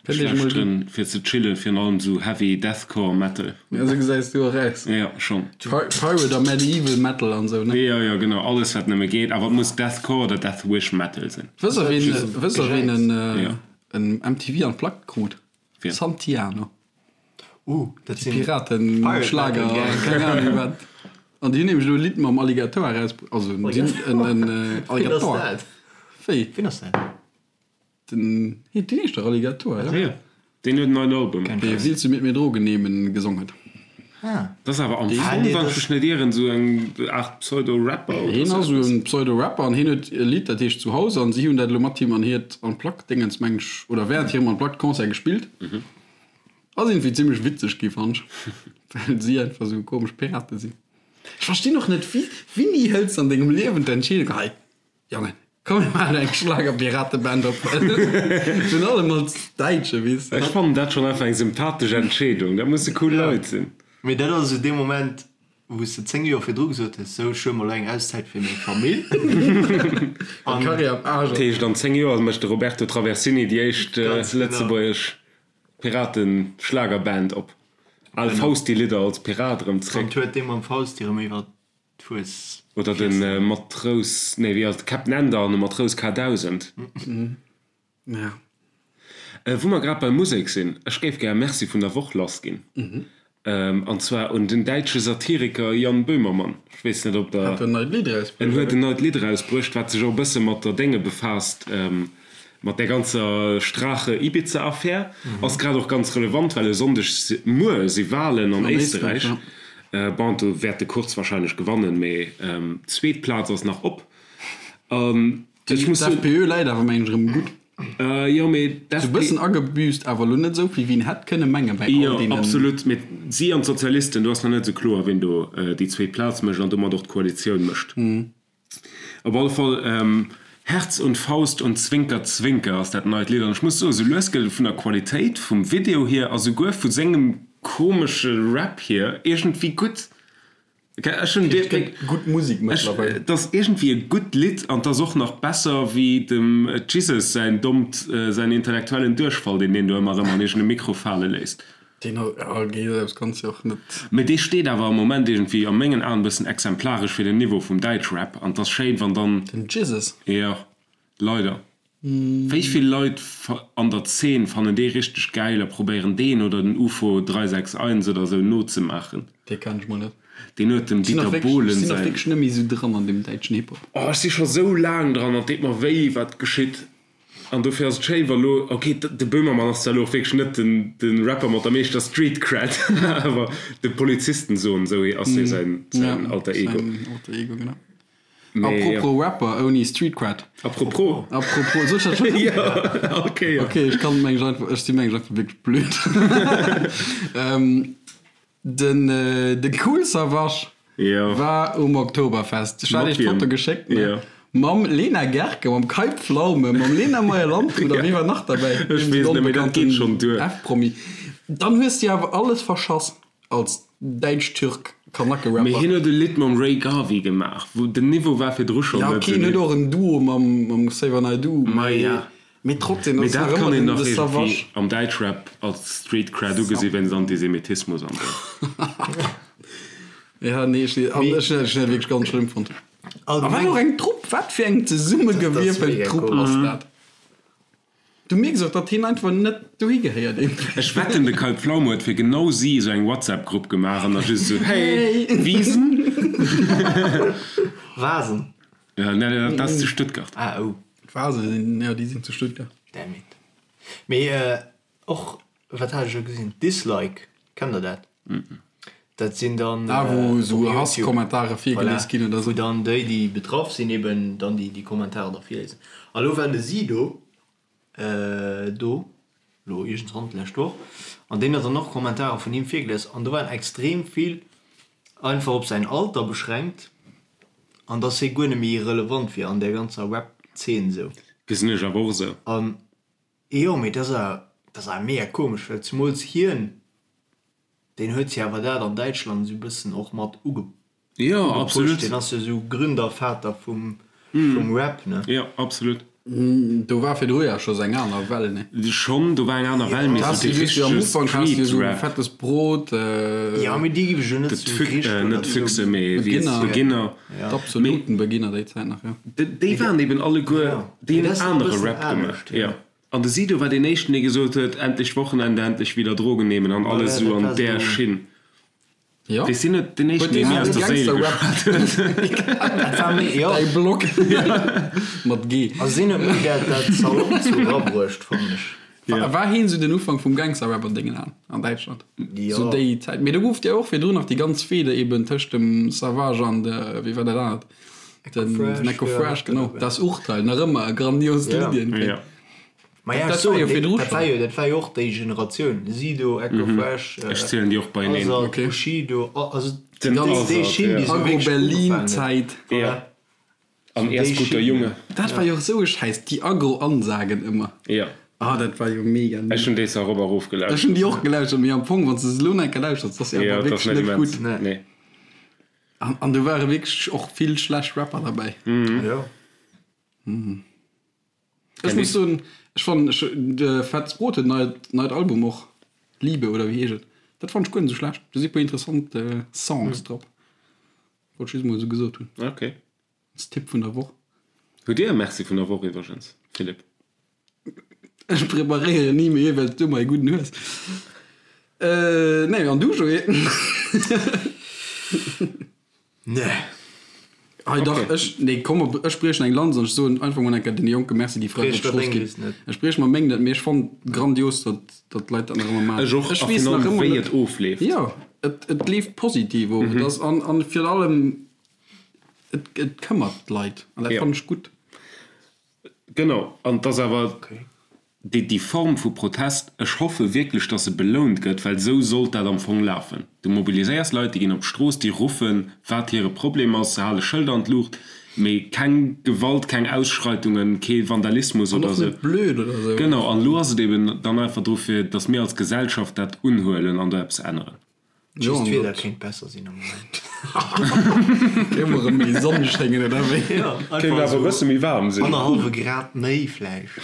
S3: Ech lauschteren fir ze chillen virun allem sou heavy deathcore metal.
S4: Ja, sou gesäis du och aus.
S3: Ja, schon.
S4: Pirate a Medieval Metal an sou, ne?
S3: Jo, jo, genau, alles wat nëmme geet, awer et muss Deathcore oder Deathwish Metal sinn.
S4: Wëss der ween, wëss der ween en, en MTV Unplugged krut?
S3: Wien?
S4: Santiano.
S2: Uh, dat sinn
S4: Piraten, Schlager, keng Ahnung wat. An déi hunn nämlech elo e Lidd mam Alligator eraus, also en Alligator.
S2: Wien ass dat?
S4: Wéi?
S2: Wien ass dat?
S4: Den, deen heescht dach Alligator, ja?
S3: Jo, deen huet en neien Album.
S4: Dee Willst du mit mir Drogen nehmen gesong huet.
S2: Ah.
S3: Dat ass awer am Fong, wann ech mech net ieren, esou eng Aart Pseudo-Rapper oder
S4: Hien
S3: sou
S4: ass esou
S3: eppes.
S4: en Pseudo-Rapper an hien huet e Lidd, dat heescht Zuhause an si hunn dat elo mat him an hiert Unplugged-Dingens, meng ech, oder während hirem Unplugged-Concert gespillt. Ass iergendwéi zimmlech witzeg gi fannt ech, well si einfach sou komesch Pirate sinn. Ech verstinn och net, wéi, wéini hëls de an dengem Liewen d'Entscheedung, hei Jongen, komm mir maachen eng Schlager-Pirateband op, virun allem als Däitsche, weess de.
S3: Ech fannen dat schonn einfach eng sympathesch Entscheedung, dat musse cool Leit sinn.
S2: Mee dat ass esou dee Moment, wou s de 10 Joer virdru gesot hues, sou ech huele mer elo eng Auszäit fir meng Famill.
S4: An Karriär am Aarsch
S3: ass. Dat heescht, an 10 Joer mécht de Roberto Traversini déi éischt lëtzebuergesch Piraten-Schlagerband op. Al Fausti-Lidder als Pirat erëm
S2: zréck. An huet dee mam Fausti erëm iwwer d'Fues.
S3: Oder de Matrous, nee wéi ass et, Captain Ender an de Matrous K1000.
S4: Ja.
S3: Wou mer grad bei Musek sinn, ech géif gär e Merci vun der Woch lassginn. An zwar un den däitsche Satiriker Jan Böhmermann. Ech weess net, ob der.
S4: Hat en neit Lidd erausbruecht?
S3: En huet en neit Lidd erausbruecht, wat sech och e bësse mat der Dénge befaasst, mat där ganzer Strache-Ibiza-Affär. Ass grad och ganz relevant, well e Sonndeg, muer, si Walen an Éisterräich. Bon, do wäert de Kurz warscheinlech gewannen, mee d'zweet Plaz ass nach op. An ech muss soen.
S4: D'FPÖ läit awer, mengen ech, erëm gutt.
S3: Jo, mee
S4: d'FP. Sou bëssen agebüßt, awer elo net esou vill, wéi een hätt kënne mengen bei all
S3: Jo,
S4: deenen.
S3: absolut. Mee si an d'Sozialisten, do ass nach net esou kloer, wien do déi zweet Plaz mécht an domat och d'Koalitioun mécht. Op alle Fall, Herz und Faust und Zwinker Zwinker ass dat neit Lidd. An ech muss soen, sou lues gëtt et vun der Qualitéit vum Video hier a souguer vu sengem komesche Rap hier iergendwéi gutt. Ech hunn
S4: Et gëtt gutt Musek mëttlerweil.
S3: Et ass iergendwéi e gutt Lidd an et ass och nach besser wéi dem Jesus säin dommt, säin intellektuellen Duerchfall, deen deen do ëmmer erëm an iergend e Mikro fale léisst.
S4: Deen ass, ja, okay, dat kanns de och net.
S3: Mee dee steet awer am Moment iergendwéi a mengen Aen e bëssen exemplaresch fir den Niveau vum Däitschrap an et ass schéin, wann dann.
S4: Den Jesus?
S3: Jo, leider. Wéi vill Leit an der Zeen fannen dee richteg gäil a probéieren deen oder den Ufo 361 oder sou nozemaachen?
S4: Dee kenn ech mol net.
S3: Deen huet dem Dieter Bohlen
S4: säin. Ech sinn och wierklech net méi sou dran an deem däitschen Hip-Hop.
S3: Oh ech si scho sou laang dran an et deet mer wéi wat geschitt an dofir ass et schéin wa lo, ok de Böhmermann ass zwar lo och wierklech net den de Rapper mat der meeschter Street Cred awer de Polizistensohn sou ass jo säin Alter Ego.
S4: Säin Alter Ego genau. Apropos Rapper ouni Street Cred.
S3: Apropos.
S4: Apropos, soll ech dat schon?
S3: Ja, okay.
S4: Okay, ech kann mengen ech einfach, ech si mengen ech einfach wierklech blöd. Den, de Kool Savas
S3: Ja.
S4: war um Oktoberfest. Ech hat iech d'Foto geschéckt, ne?
S3: Ja.
S4: Mam Lena Gercke, mam Kai Pflaume, mam Lena Meyer-Landrut a wie war nach derbäi?
S3: Ech weess net, mee dat geet schonn duer.
S4: F-Promi. Dann hues de awer alles verschass als Däitsch-Türk. Kanacke-Rapper.
S3: Mee hien huet e Lidd mam Ray Garvey gemaach, wou den Niveau war virdru schonn
S4: Ja,
S3: net
S4: ok, hien huet och en Duo mam mam Xavier Naidoo,
S3: Ma
S4: mee
S3: ja.
S4: mee trotzdem,
S3: Mee
S4: dat ass
S3: dat
S4: nach
S3: kann
S4: ëmmer
S3: een
S4: den
S3: nach
S4: de
S3: iergendwéi
S4: Savage.
S3: am Däitschrap als Street Cred ugesi wéinst Antisemitismus an esou.
S4: Ja, nee, ech an ech hunn dat wierklech ganz schlëmm fonnt. A wat
S2: Allgemeng
S4: och eng Trupp, wat fir eng
S2: Dat ass
S4: zesummegewierfelt
S2: mega
S4: Trupp
S2: komesch.
S4: ass dat? Du mierks och, datt hien einfach net dohi gehéiert iergendwéi.
S3: Ech wetten de Kai Pflaume huet fir genau si esou eng WhatsApp Grupp gemaach an da just esou hey Wiesen.
S2: Wasen.
S3: Ja, nee, dat ass zu Stuttgart.
S2: Ah oh.
S4: D'Wasen sinn, jo déi sinn zu Stuttgart.
S2: Damn it. Mee och, wat hat ech elo gesinn, Dislike, kennt der dat? Dat sinn dann
S4: Ah, wou esou
S2: op YouTube,
S4: Hasskommentare virgelies
S2: voilà,
S4: ginn oder
S2: wou
S4: esou.
S2: dann déi, déi betraff sinn, eben dann déi, déi Kommentarer da virliesen. A lo war de Sido do, lo iergendwann d'lescht Woch, an deen huet dann och Kommentarer vun him virgelies an do waren extrem vill einfach op säin Alter beschränkt an dass hie guer net méi relevant wier an där ganzer Rap-Zeen esou.
S3: Gesinn ech awer och esou.
S2: An jo, mee dat ass awer, dat ass awer mega komesch, well zemools hien, Deen huet jo awer dat an Däitschland esou bëssen och mat
S3: Jo,
S2: ugepusht.
S3: absolut.
S2: Deen ass jo esou Gründervater vum Rap, ne?
S3: Jo, absolut.
S4: Do war virdru ja scho eng aner Well, ne?
S3: Schonn, do war eng aner Well, mee
S4: Da
S3: esou
S4: has du
S3: dee
S4: just jo am
S3: richtege
S4: Ufank has du jo esou
S3: Street-Rap.
S4: Fettes Brot.
S2: Jo, mee déi giff ech jo net
S3: De
S2: zu
S3: Füch,
S2: richteg
S3: net
S2: oder zu.
S3: Füchse, mee wéi heescht
S4: Beginner.
S3: Beginner.
S4: Ja. D'absoluten Beginner déi Zäit nach, jo.
S3: Déi waren eben alleguer,
S2: Ja,
S3: déi
S2: mee
S3: hunn
S2: dat ass nach e
S3: anere
S2: bëssen
S3: Rap gemaach,
S2: anescht, jo.
S3: jo. An de Sido war deen éischten, dee gesot huet, Endlech Wochenende, endlech wieder Drogen nehmen an alles
S2: Voilà,
S3: esou
S2: dat
S3: an
S2: war
S3: där
S2: esou.
S3: Schinn.
S4: Jo.
S3: Weess hien net deen éischten,
S4: Huet
S3: dee
S4: dee
S3: mir aus
S4: den
S3: der Séil
S4: Gangster-Rap
S3: geschwat huet?
S2: Dat war méi, jo.
S4: Däi Blog mat G.
S2: Also sinn huet méi dat, dat salopp sou erabruecht, fannen ech.
S4: War, war hien sou den Ufank vum Gangster-Rap an dengen Aen an Däitschland?
S2: Jo.
S4: Sou déi Zäit. Mee do gouf et jo och virdrun nach déi ganz Fehde eben tëscht dem Savage an de, wéi war dat anert? Den,
S2: Fresh,
S4: den Eko
S2: ja,
S4: Fresh, genau.
S2: ja.
S4: Das Urteil, nach ëmmer e grandiost
S2: Ja.
S4: Lidd iergendwéi.
S3: Ja.
S2: Ma ja,
S4: Dat
S2: ech
S4: war jo
S2: soen,
S4: virdru
S2: dat war
S4: schon.
S2: jo, dat war jo och déi Generatioun, Sido, Eko Fresh,
S3: Ech zielen déi och beieneen.
S2: Azad,
S4: Okay.
S2: Bushido, also
S3: Den
S2: déi, déi
S3: Azad,
S2: Schinn,
S3: ja.
S2: déi sou wierklech ugefaangen huet.
S4: Agro-Berlin-Zäit.
S3: Ja. An
S2: Déi
S3: erst guter
S2: Schinn,
S3: Junge.
S4: Dat war jo och sou e Schäiss, déi Agro-Ansagen ëmmer.
S3: Ja.
S4: Ah, dat war jo mega.
S3: Ech hunn déi erop a rof
S4: Ech
S3: gelauschtert.
S4: hunn déi och gelauschtert, mee am Fong, wann s de se elo nach eng Kéier lauschters, dat ass jo
S3: Ja,
S4: einfach
S3: dat ass
S4: wierklech
S3: net
S4: net
S3: immens.
S4: gutt.
S2: Nee.
S3: Nee.
S4: An, an do ware wierklech och vill schlecht Rapper derbäi.
S2: Ja.
S4: Ech muss soen, ech fannen, ech, de Fettes Brot huet neit, neit Album och, Liebe oder wéi heescht et, dat fannen ech guer net esou schlecht. Do si puer interessant Songs drop. Wollt ech just mol esou gesot hunn.
S3: Ok.
S4: Als Tipp vun der Woch.
S3: Hutt Dir e Merci vun der Woch iwwregens, Philippe?
S4: Ech preparéieren ni méi, well s du ëmmer ee gudden hues. Nee, an du, Joé?
S2: Nee.
S4: Hei dach,
S3: Okay.
S4: ech, nee, komm, op, ech briechen eng Lanz an ech soen einfach mol eng Kéier den Jonke Merci, déi fräi
S2: Briech
S4: op d'Strooss
S2: mer deng
S4: ginn.
S2: List net.
S4: Ech brieche mer meng net, mee ech fannen grandios, datt, datt d'Leit dat nach ëmmer maachen.
S3: Ech och,
S4: Ech
S3: a
S4: weess
S3: virun
S4: nach
S3: allem
S4: ëmmer
S3: wéi
S4: net,
S3: et ofleeft.
S4: jo, et, et leeft positiv of. Et ass, an, an virun allem, et, et këmmert d'Leit an dat
S3: Ja.
S4: fannen ech gutt.
S3: Genau, an et ass awer déi, déi Form vu Protest, ech hoffe wierklech, datt se belount gëtt, well esou sollt dat am Fong lafen. Du mobiliséiers Leit, déi ginn op d'Strooss, déi ruffen, wat hire Problem ass, se hale Schëlder an d'Luucht, mee keng Gewalt, keng Ausschreitungen, kee Vandalismus
S4: An
S3: oder
S4: och
S3: esou.
S4: net blöd oder esou.
S3: Genau, an elo ass et eben dann einfach dru fir, datt mir als Gesellschaft dat unhuelen an do eppes änneren.
S2: Just d'Wieder kéint besser sinn am Moment.
S4: Kéint mol erëm méi Sonn schéngen, oder wéi?
S2: Jo,
S3: Kéint
S2: einfach
S3: awer e
S2: esou
S3: bësse méi waarm sinn.
S2: annerhallwe Grad méi vläicht.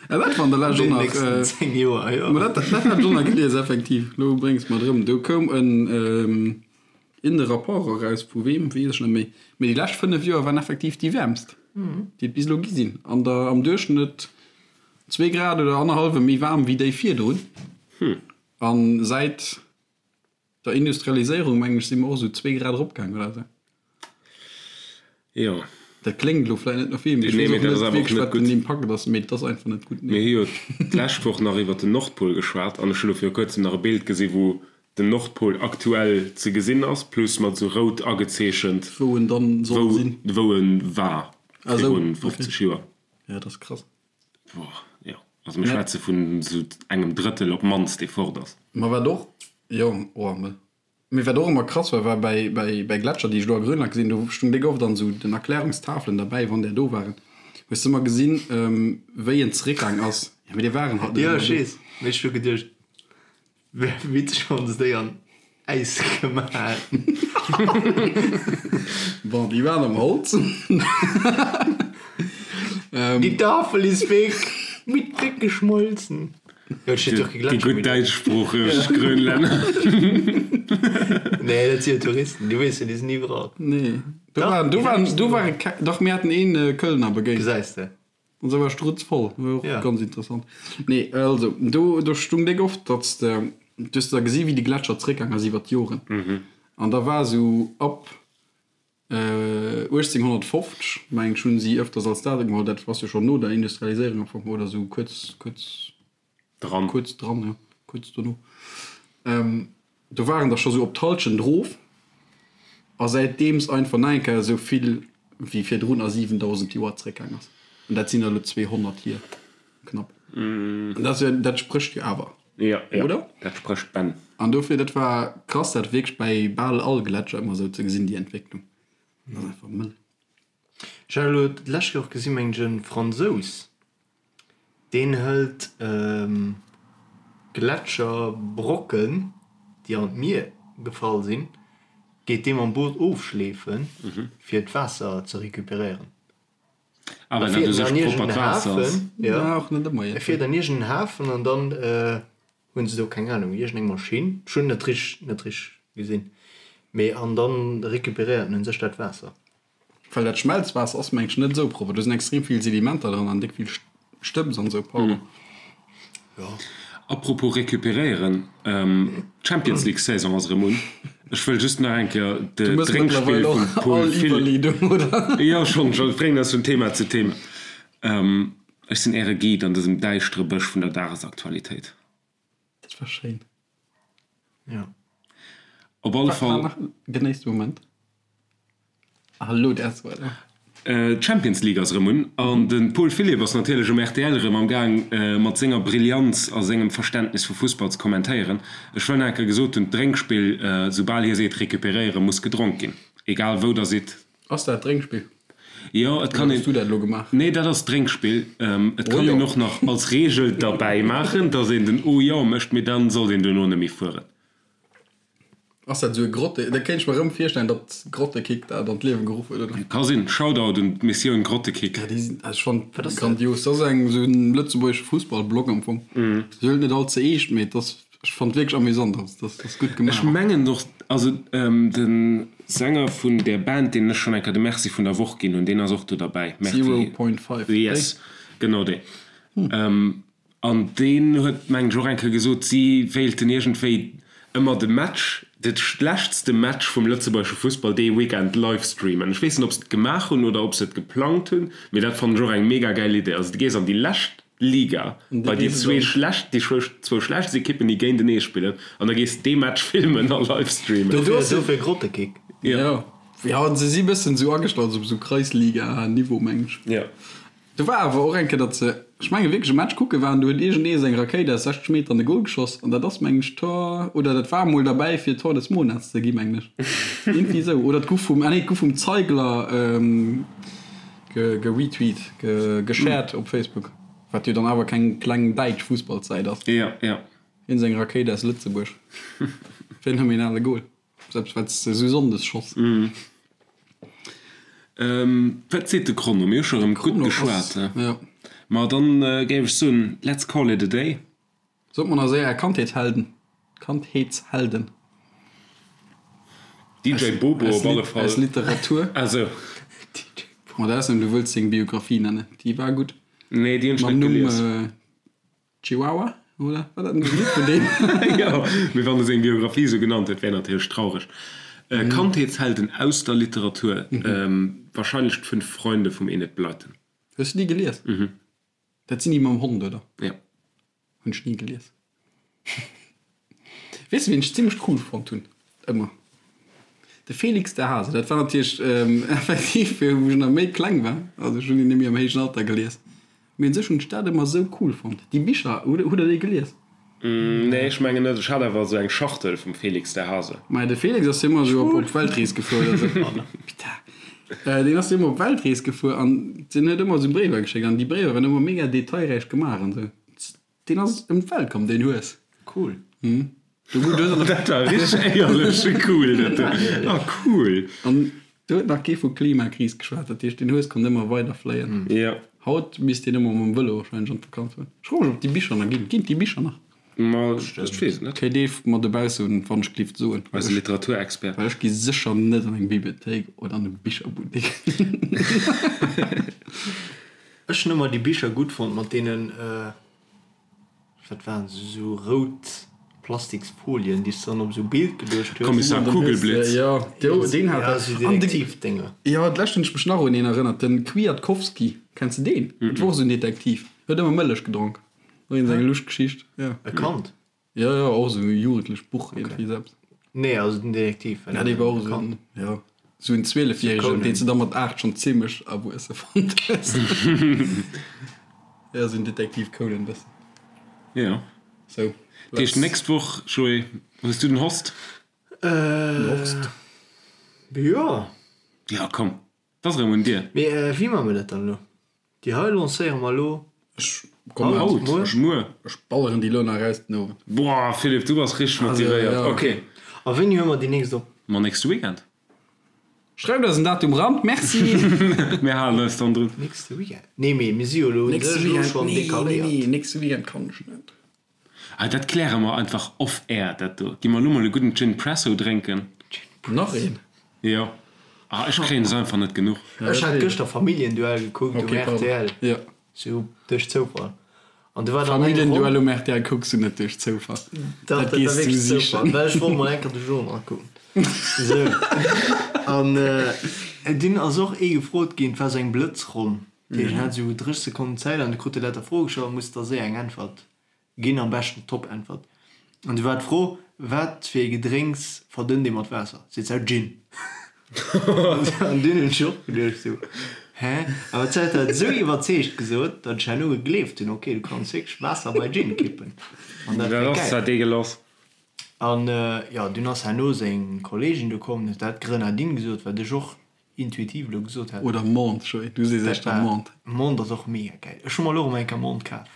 S4: Ja, dat war an der Lescht
S2: An
S4: och
S2: den
S4: nach.
S2: nächsten 10 Joer, jo.
S4: Ma dat, dat hat ech och nach gelies, effektiv. Elo bréngs de mer et erëm. Do koum en in de Rapport eraus, vu weem, weess ech net méi. Mee déi lescht 5 Joer waren effektiv déi wäermst, déi et bis elo gi sinn. An der, am Duerchschnëtt zwee Grad oder annerhallwe méi waarm wéi déi virdrun. A säit der Industrialiséierung, mengen ech, si mer och esou zwee Grad eropgaang oder esou.
S3: Jo.
S4: Dat kléngt elo vläicht net no vill, mee ech
S3: Nee,
S4: weess
S3: mee
S4: och
S3: dat ass
S4: net
S3: awer och
S4: wierklech,
S3: net
S4: wat den
S3: gutt.
S4: Impakt ass, mee et ass einfach net gutt,
S3: Mir
S4: nee.
S3: hu jo d'lescht Woch nach iwwer den Nordpol geschwat an ech hu lo viru kuerzem nach e Bild gesi wou den Nordpol aktuell ze gesinn ass, plus mat esou rout agezeechent,
S4: Wou en dann soll
S3: wou
S4: sinn.
S3: wou en war
S4: Ah esou,
S3: virun
S4: okay.
S3: 50 Joer.
S4: Ja, dat ass krass.
S3: Boah, jo. Also mir schwätze vun esou engem Drëttel op d'mannst, dee fort ass.
S4: Ma wat och, jo, oh, me. Mee wat och ëmmer krass war, war bäi, bäi, bäi Gletscher, déi ech do a Grönland gesinn hunn, do stung déck oft an esou den Erklärungstafelen derbäi, wann där do waren, hues de ëmmer gesinn, wéi en zeréckgaang ass. Jo, mee déi waren halt net
S2: Jo,
S4: ëmmer
S2: ech
S4: do.
S2: weess, mee ech hu geduecht, wär witzeg, wann se déi an. Äis gemaach.
S4: Bon, déi waren am Holz.
S2: Die Tafel ist weg, mit weggeschmolzen. Jo, et steet jo och kee
S3: Déi
S2: Gletscher
S3: gutt
S2: méi do.
S3: däitschsproocheg Grönlänner.
S2: Nee, dat si jo Touristen, du weess jo, déi sinn iwwerall.
S4: Nee, do
S2: Dach,
S4: waren, do
S2: déi
S4: waren,
S2: sinn
S4: do ware keng, dach mir haten een Kölner begéint.
S2: Gesäis de.
S4: An se war strutzvoll, war och
S2: Ja.
S4: ganz interessant. Nee, also, do, do stung déck oft, datt s de, du hues da gesi wéi de Gletscher zréckgaang ass iwwer d'Joren. An da war esou ab 1850, meng ech, hunn si ëfters als Datum geholl, dat ass jo schonn no der Industrialiséierung am Fong, oder esou kuerz, kuerz
S3: Dran.
S4: Kuerz dran, jo, kuerz dono. Do waren der scho sou op d'Halschent erof a säitdeems einfach nach eng Kéier esou vill wéi virdrun a 7.000 Joer zréckgaang ass. An dat sinn der elo 200 hier, knapp. An dat ass jo, dat sprécht jo awer,
S3: Jo, jo,
S4: oder?
S3: dat sprécht Bänn.
S4: An dofir, dat war krass, dat wierklech bäi bal all Gletscher ëmmer esou ze gesinn, déi Entwécklung. Dat ass einfach mëll.
S2: Ech hat elo d'lescht Kéier och gesinn, mengen ech, e Fransous, Deen hëlt Gletscherbrocken, déi an d'Mier gefall sinn, geet dee mam Boot ofschleefen, fir d'Waasser ze recuperéieren.
S3: Ah,
S2: E
S3: well dat u
S2: fiert
S3: sech
S2: an
S3: proppert
S2: iergendeen
S3: Waasser ass.
S2: Hafen, jo, e fiert an iergendeen Hafen an dann hunn se do, keng Anung, iergendeng Maschinn, ech hunn net richteg, net richteg gesinn, mee an dann recuperéiert en u sech dat Waasser.
S4: Well dat Schmelzwaasser ass mengen ech net esou propper, do sinn extrem vill Sedimenter dran an déck vill Stëbs an esou, pardon.
S3: Apropos recuperéieren, d'Champions League Saison ass erëm un. Ech wëll just nach eng Kéier de
S4: Du mëss
S3: Drénkspill
S4: mëttlerweil
S3: vum
S4: och
S3: Paul
S4: all
S3: Philipp.
S4: Iwwerleedung, oder?
S3: Jo, schonn, schonn, ech bréngen eis vun Thema zu Thema. Ech sinn Äre Guide an dësem däischtere Bësch vun der Dagesaktualitéit.
S4: Dat war schéin.
S2: Ja.
S3: Op alle Fall.
S4: War nach genéisst de Moment. Ah, elo däerfs de weider.
S3: D'Champions League ass erëm un an de Paul Philipp ass natierlech um rtl erëm am Gaang mat senger Brillanz a sengem Verständnis vu Fussball ze kommentéieren. Ech wëll nach eng Kéier gesot hunn, d'Drénkspill, soubal hie seet recuperéieren, muss gedronk ginn, egal wou der sidd.
S4: Ass dat Drénkspill?
S3: Jo, et kann
S4: Oder
S3: een.
S4: hues du dat elo gemaach?
S3: Nee, dat ass d'Drénkspill. Et
S4: Oh
S3: kann een
S4: jo.
S3: och nach als Reegel derbäi maachen, dass een den Oh jo mécht, mee dann sollt een duerno net méi fueren.
S4: Ass dat esou e Grotte? Dat kéint ech mer erëm virstellen, datt Grottekick dat an d'Liewe geruff huet, oder?
S3: Ka sinn. Shoutout un d'Missioun Grottekick.
S4: Ja, déi sinn, also ech fannen grandios. Dat ass eng esou en lëtzebuergesche Fussballblog am Fong. Se huelen et net all ze eescht, mee et ass Ech fannt wierklech amüsant, ass ass gutt
S3: Ech
S4: gemaach.
S3: mengen och, also de Sänger vun där Band, deenen ech schonn eng Kéier de Merci vun der Woch ginn hunn, deen ass och do derbäi. Merci.
S4: Zero Point Five, déi?
S3: Yes, genau dee. An deen huet, mengen ech, och eng Kéier gesot, si wéilten iergendwéi ëmmer de Match, de schlechtste Match vum lëtzebuergesche Fussball dee Weekend live streamen. Ech weess net, ob se et gemaach hunn oder ob se et geplangt hunn, mee dat fannen ech och eng mega gäil Idee. Also du gees an déi lescht Liga, bei déi zwee schlecht, déi zwou schlechtst Ekippen, déi géintenee spillen, an da gees dee Match filmen a live streamen.
S2: Dofir, dofir Grottekick.
S4: Jo, jo, se si bëssen esou agestallt op esou Kreisliga-Niveau, meng ech.
S3: Jo.
S4: Do war awer och eng Kéier, datt se, ech menge wierklech e Match kucke waren, do huet iergendee seng Rakéit aus 60 Meter an de Gol geschoss an dat ass, meng ech, Tor, oder dat war emol derbäi fir Tor des Monats ze gi, mengen ech. Iergendwéi esou. Oder et gouf vum, ah nee, et gouf vum Zeigler, Geretweet, geshared op Facebook, wat jo dann awer keng kleng däitsch Fussballssäit ass.
S3: Ja, ja.
S4: Hien seng Rakéit aus Lëtzebuerg. Phänomenale Goal. Selbst wat s de esou Sonndes schoss.
S3: Wat seet de Chrono? Mir hu scho rëm gutt geschwat.
S4: Jo.
S3: Ma dann géif ech soen, let's call it a day.
S4: Sot mer nach séier är Kandheetshelden. Kandheetshelden.
S3: DJ Bobo op alle Fall.
S4: Aus Literatur.
S3: Ah sou.
S4: Mat Ausnam du wëlls seng Biographie nennen. Déi war gutt.
S3: Nee, déi hunn ech
S4: Mam
S3: net
S4: Numm
S3: gelies.
S4: Chihuahua, oder? War dat net e Lidd vun deem?
S3: Jo, mee wann e seng Biographie sou genannt huet, wär natierlech traureg. Kandheetshelden aus der Literatur, wahrscheinlech d'Fünf Freunde vum Enid Blyton.
S4: Hues du déi gelies?
S3: Mhm.
S4: Dat sinn déi mam Hond, oder?
S3: Jo.
S4: Hunn ech ni gelies. Weess de wien ech zimlech cool fonnt hunn ëmmer? De Felix de Hase. Dat war natierlech effektiv wou ech nach méi kleng war, also ech hunn deen némmi am héijen Alter gelies, mee un sech hunn ech dat ëmmer esou cool fonnt. Déi Bicher, hutt der déi gelies?
S3: Nee, ech mengen net. Ech hat awer esou eng Schachtel vum Felix de Hase.
S4: Maja, de Felix ass jo ëmmer esou op Weltrees gefuer oder esou. Putain. Deen ass jo ëmmer op Weltrees gefuer an deen huet ëmmer esou Bréiwer geschéckt an déi Bréiwer waren ëmmer mega detailräich gemaach an esou. Deen ass ëm d'Welt komm, deen Hues.
S2: Cool.
S3: Dat war richteg éierlech cool dat do. Ah cool.
S4: An do huet nach kee vu Klimakris geschwat, dat heescht den Hues konnt ëmmer weider fléien.
S3: Jo.
S4: Haut misst deen ëmmer mam Vëlo warscheinlech an d'Vakanz fueren. Ech froe mech ob déi Bicher nach ginn. Ginn et déi Bicher nach?
S3: Ma ech weess et net.
S4: Kéint ee mer dobausse wann ech glift soen.
S3: Eise Literaturexpert.
S4: Well ech gi sécher net an eng Bibliothéik oder an e Bicherbuttek.
S2: Ech hunn ëmmer déi Bicher gutt fonnt mat deenen. Wat waren se, esou rout Plastiksfolien, déi s de dann op esou Bild geluecht hues?
S3: Kommissar Kugelblitz.
S4: Jo, deen hat
S2: dat. Ja, esou Detektivdénger.
S4: Jo, d'lescht hunn ech mech nach un een erënnert, den Kwiatkowski. Kenns de deen? Dat wor och esou en Detektiv. Huet ëmmer Mëllech gedronk. Och een seng luscht Geschicht, jo.
S2: E Kand?
S4: Jo, jo, och esou e jugendlecht Buch iergendwéi esou eppes.
S2: Nee, also den Detektiv
S4: war net e Kand. Jo, esou en Zwielefjäregen, deen s de da mat 8 schonn zimmlech erwuesse fonnt hues. Jo, esou en Detektiv Conan bëssen.
S3: Jo.
S4: Sou.
S3: Dat heescht, d'nächst Woch, Joé, hues du den Horst?
S4: Den Horst?
S2: Jo.
S3: Jo, komm, 't ass erëm un dir.
S2: Mee wéi maache mir dat dann elo? Déi hei lancéiere mer elo
S4: Ech kommen
S3: haut,
S4: muer.
S3: Muer.
S4: Ech balleren déi elo nach eraus den Owend.
S3: Boah, Philippe, du bass richteg motivéiert. Ok.
S2: A wéini huele mer déi nächst op?
S3: Ma nächste Weekend.
S4: Schreift eis en Datum ran, merci!
S3: Mir halen eis dann drun.
S2: Nächste Weekend? Nee, mee mir si jo elo
S4: u sech
S2: elo schonn decaléiert.
S4: Nee, nächste Weekend kann ech net.
S3: Ah, dat kläre mer einfach off air, dat do. Gi mer elo mol e gudden Gin Presso drénken.
S4: Nach een?
S3: Jo. Ah, ech kréien es einfach net genuch.
S2: Ech hat gëschter Familienduell gekuckt um rtl.
S4: Jo.
S2: Sou duerch Zoufall. An du war dann eng Ronn.
S4: Familienduell um rtl kucks du net duerch Zoufall.
S2: Dach, dat war wierklech Zoufall, well ech wollt mol eng Kéier de Genre kucken. Sou. An dunn ass och ee gefrot ginn, et war sou eng Blëtzronn. Dat heescht, en hat sou 30 Sekonnen Zäit an du krut e lauter Froe gestallt a musst da séier eng Äntwert ginn, am beschten d'Top-Äntwert. An du war d'Fro, Wat fir ee Gedrénks verdënnt ee mat Waasser? Seet se, Gin. An dunn hunn ech och geduecht sou, Hä? Awer d'Sait hat et esou iwwerzeegt gesot, datt ech herno gegleeft hunn, ok, du kanns wierklech Waasser bei Gin kippen. An dat
S3: Dat
S2: war
S3: ass
S2: gäil.
S3: zwar deegelass.
S2: An jo, dunn ass herno seng Kolleegin do komm, huet dat Grenadine gesot, wat ech och intuitiv elo gesot hätt.
S4: Oder Menthe, Joé, du sees
S2: Dat
S4: éischter
S2: war,
S4: Menthe.
S2: Menthe ass och mega gäil. Ech hu mer elo erëm eng Kéier Menthe kaf.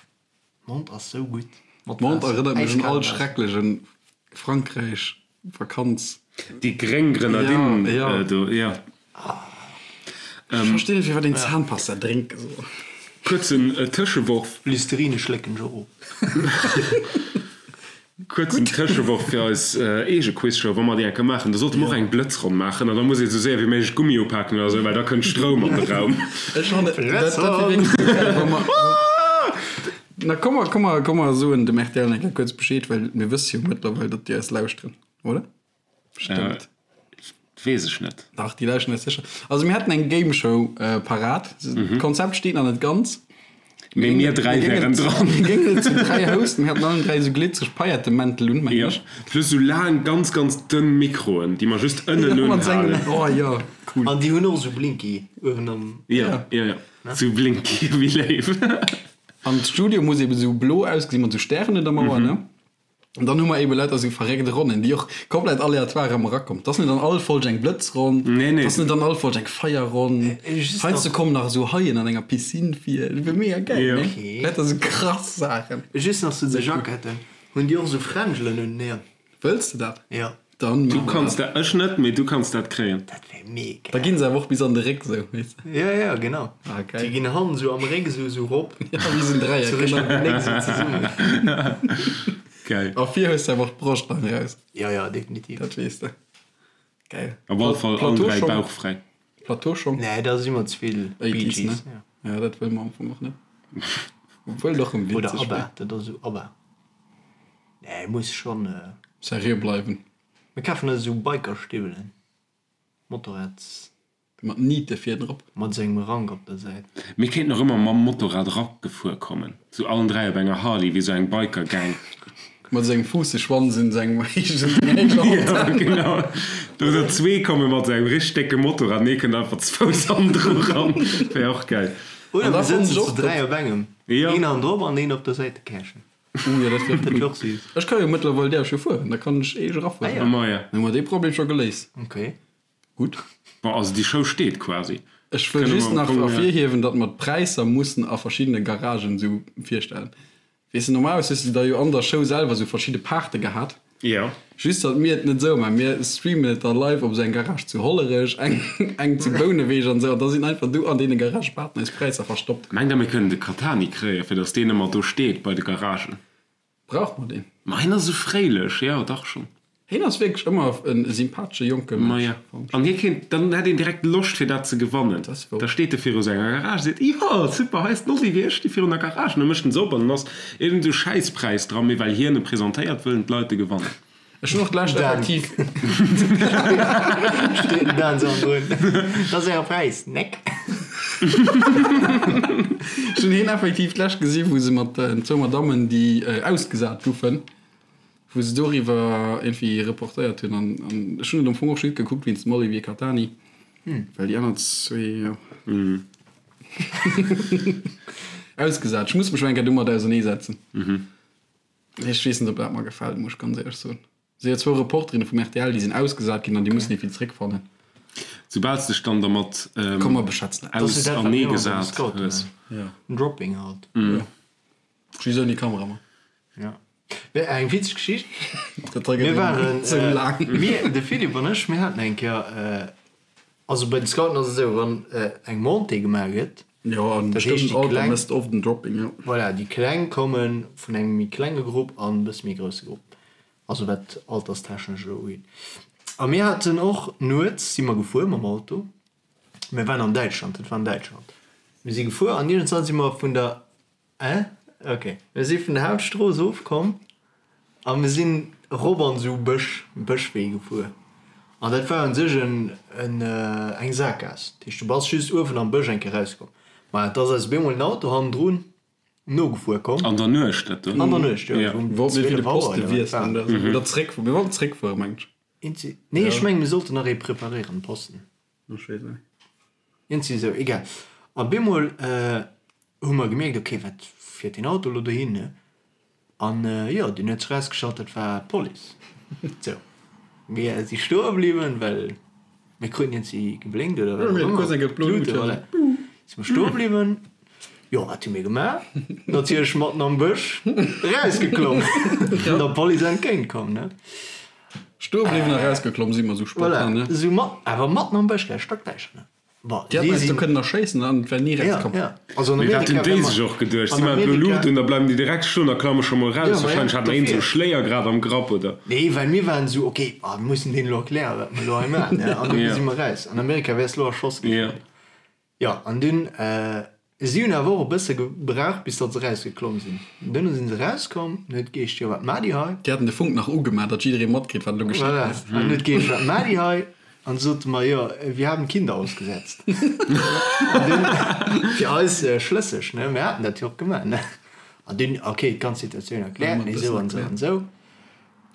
S2: Menthe ass sou gutt
S4: mat Menthe
S2: Waasser,
S4: erënnert mech un
S2: äiskal
S4: all
S2: Waasser.
S4: schrecklechen Frankräich Vakanz.
S3: Déi gréng Grenadine
S4: Ja, ja.
S3: do, jo.
S4: Ech verstinn net firwat een Zahnpasta drénke soll.
S3: Kuerzen Tëscheworf.
S2: Listerine schlécken ech och of.
S3: Kuerzen Tëscheworf fir eis eege Quizshow, wa mer déi eng Kéier maachen, da sollte mer och eng Blëtzronn maachen an da muss ee sou séier wéi méiglech Gummi upaken oder sou, well da kënnt Stroum an de Raum.
S4: Ech fannen, dat dat wier wierklech sou gäil, wa mer, na komm mer, komm mer, komm mer soen dem rtl eng Kéier kuerz Bescheed, well mir wësse jo mëttlerweil, datt déi eis lauschteren, oder? Bestëmmt.
S3: Weess ech net.
S4: Dach, déi lauschteren eis sécher. Also mir hätten eng Game Show parat. D'Konzept steet nach net ganz.
S3: Mee mir 3 wären dran.
S4: Mir géingen et zu 3 hosten. Mir hätten allen 3 esou glitzereg Paillettemäntel un, mengen
S3: Jo,
S4: ech.
S3: plus esou laang, ganz, ganz dënn Mikroen, déi mer just ënnen unhalen.
S4: Oh jo, cool.
S2: An déi hunn och esou Blinky uewen am.
S3: Jo, jo, jo, esou Blinky, wéi léif.
S4: An d'Studio muss eben esou blo ausgesinn, mat esou Stären un der Mauer, ne? An dann hu mer eben lauter esou verréckt Ronnen, déi och komplett aleatoire ëmmer erakommen. 't ass net an all Folg eng Blëtzronn,
S3: Nee, nee.
S4: 't ass net an all Folg eng Feierronn. Heiansdo kommen nach esou Haien an enger Piscine vir. Dat wier mega gäil,
S3: Jo.
S4: nee? Lauter esou krass Saachen.
S2: Just nach zu de Jacketten, Hunn déi och esou Fränjelen un den Äerm?
S4: Wëlls de dat?
S2: Jo.
S4: Dann
S3: Du
S4: maache mer
S3: kanns
S4: dat.
S3: dat, ech net, mee du kanns dat kréien.
S2: Dat wär mega.
S4: Da ginn se awer och bis an de Réck esou, weess de.
S2: Jo, jo, genau.
S4: Ah, geil.
S2: Déi ginn hannen esou am Réck esou esou rop.
S4: Ja, wéi esou en Dräieck,
S2: Sou Richtung
S4: genau.
S2: Gnéck esou zesummen.
S3: Geil.
S4: A vir hues de awer och d'Broscht nach eraus.
S2: Jo, jo, definitiv.
S4: Dat weess de. Geil.
S3: Op alle Fall allen 3 bauchfräi.
S4: Plateauschong?
S2: Nee, da si mer ze vill Bee
S4: 80s,
S2: Gees.
S4: ne? Ja, dat wëlle mer am Fong och net. Obwuel et och erëm
S2: Oder
S4: witzeg
S2: ABBA,
S4: wär.
S2: dat ass esou ABBA. Nee, muss schonn.
S4: Seriö bleiwen.
S2: Mir kafen eis esou Bikerstiwwelen, Motorrads.
S4: Mat Niite vir drop.
S2: Mat esou engem Rank op der Säit.
S3: Mir kéinten och ëmmer mam Motorrad eragefuer kommen, sou allen 3 op enger Harley, wéi sou eng Biker-Gang.
S4: Mat sengem Fuusseschwanz un sengem héijen
S3: Ja, genau. Oder zwee komme mat sou engem richteg décke Motorrad an ee kënnt einfach ze Fouss hannendru ran. Wär och gäil.
S2: Oder
S4: An da
S2: mir
S4: fannen
S2: sëtzen
S4: ech
S2: zu
S4: och,
S2: 3 op engem,
S3: Jo.
S2: een hannendrop an een op der Säitekäschen.
S4: Uh, jo, dat wär
S2: Dat wär och süß.
S4: Ech ka jo mëttlerweil däerf jo fueren, da kann ech eeg erafueren.
S2: Ah, ja.
S3: Ma ja.
S4: Dann hu mer dee Problem scho geléist.
S2: Okay.
S4: Gutt.
S3: Bon, also déi Show steet quasi.
S4: Ech wëll
S3: Kënne
S4: just
S3: mer
S4: nach
S3: am Fong, ja.
S4: ervirhiewen, datt mer d'Präisser mussen a verschiddene Garagen esou virstellen. Weess de, normalerweis hues de da jo an der Show selwer esou verschidde Paarte gehat.
S3: Jo.
S4: Just datt mir et net esou maachen. Mir streamen et da live op esou eng Garage zu Hollerech, eng eng zu Bouneweg an esou. An da sinn einfach do an deene Garagë behaapten eis Präisser verstoppt.
S3: Mengt der mir kënnen de Catani kréien, fir datt deen ëmmer do steet bei de Garagen?
S4: Brauche mer deen?
S3: Ma hien ass esou fréilech, jo dach schonn.
S4: Hien ass wierklech ëmmer e sympathesche jonke
S3: Mënsch. Maja, an hie kéint, dann hätt een direkt Loscht fir dat ze gewannen. Da steet e viru senger Garage, seet, Jo, super, hei ass den Olivier, ech sti virun der Garage. An da mécht en se op an dann ass iergend esou Schäisspräis dran, mee well hien e presentéiert, wëllen d'Leit e gewannen.
S4: Ech hunn och d'lescht effektiv.
S2: Steet den Dan esou drun, Dat ass äre Präis, neck.
S4: Ech hunn hien effektiv d'lescht gesi wou se mat zwou Madammen, déi ausgesat goufen, wou se doriwwer iergendwéi reportéiert hunn an ech hunn et am Fong och just gekuckt wéinst dem Olivier Catani, well déi aner zwee, jo, ausgesat. Ech muss mech mol eng Kéier domat auserneesetzen. Ech weess net, ob dat mer gefält, muss ech ganz éierlech soen. Si jo zwou Reporterinne vum rtl, déi sinn ausgesat ginn an déi mussen iergendwéi zeréckfannen.
S3: Soubal s dech dann dermat
S4: Komm mer beschätzen dat.
S3: auserneegesat hues.
S2: Dropping halt.
S4: Jo. Just ouni Kameramann.
S2: Ja. Mee eng witzeg Geschicht.
S4: Dat hei gëtt
S2: Mir waren,
S4: esou laang.
S2: mir, de Philippe an ech, mir haten eng Kéier, also bei den Scouten ass et esou, wann eng Montée gemaach gëtt,
S4: Jo, an
S2: dat heescht
S4: bestëmmten
S2: déi
S4: Alter
S2: Kleng,
S4: mësst oft en Dropping, jo.
S2: voilà, déi Kleng komme vun engem méi klenge Grupp an e bësse méi grousse Grupp, also wat alterstechnesch elo ugeet. A mir haten och nuets si mer gefuer mam Auto, mir waren an Däitschland, dat war an Däitschland, mir si gefuer an iergendwann si mer vun der Äh? Ok. Mir si vun der Hauptstrooss ofkomm a mir sinn erop an esou Bësch, Bëschwee gefuer. An dat war un sech en, en, eng Sakgaass. Dat heescht, du bass just uewen am Bësch eng Kéier rauskomm. Ma et ass eis op eemol en Auto hannendrun nogefuer komm.
S3: An der Nuecht dat do?
S2: An der Nuecht, jo.
S4: Ja.
S2: Um
S4: Mir wollten fir de
S2: 12 Auer
S4: Poste
S2: oder wat
S4: wiesselen
S2: war.
S4: oder esou. Oder zréckfueren. Mir wollten zréckfueren, mengen ech.
S2: Eenzi, nee, ech mengen, mir sollten nach ee preparéieren, Posten.
S4: Ech weess net.
S2: Eenzi esou, egal. A bemol hu mer gemierkt, ok, wat fiert deen Auto elo dohin, ne? An jo, dunn huet sech erausgestallt, dat war d'Police. Sou, mir si stoe bliwwen, well mir kruten iergendwéi geblénkt oder wat och ëmmer, d'Luute, voilà. Si mer stoe bliwwen. Jo, wat hu mir gemaach? Natierlech matten am Bësch erausgeklomm an der Police entgéint komm, ne?
S4: Stoe bliwwen a erausgeklomm si mer esou spontan, ne?
S2: Voilà, esou mat, awer matten am Bësch, gell, stockdäischter, ne? Bon,
S4: Déi hätten eis do kënnen erschéissen an et wär ni
S2: Ja,
S4: rauskomm.
S2: ja. Also an
S3: Mee wat
S2: Amerika
S3: hunn déi
S2: wär mer,
S3: sech och geduecht? Si
S2: an
S3: maachen elo
S2: Amerika,
S3: Luut un, da bleiwen déi direkt stoen a klamme scho mol
S2: ja,
S3: raus.
S2: ma ja,
S3: Wahrscheinlech hat nach een esou
S2: dofir.
S3: e Schléier grad am Grapp, oder?
S2: Nee, well mir waren esou, okay, ah, mir mussen deenen elo erklären, wat mer elo hei maachen, ne? An dofir
S3: Ja.
S2: si mer raus. An Amerika wäers elo erschoss ginn.
S3: Ja.
S2: Jo, an dunn, si hunn awer och e bësse gebraucht, bis datt se erausgeklomm sinn. Dunn si se erauskomm, an huet geescht, jo, wat maacht dir hei?
S4: Déi haten de Funk nach ugemaach, datt jidderee matkritt, wat elo geschitt
S2: Voilà,
S4: ass.
S2: an huet geescht, wat maacht dir hei? An du sote mer, jo, wir haben Kinder ausgesetzt. An dunn, fir eis schlësseg, ne, mir haten dat jo och gemaach, ne. An dunn, okay, d'ganz Situatioun erkläert, nee, esou an esou an esou.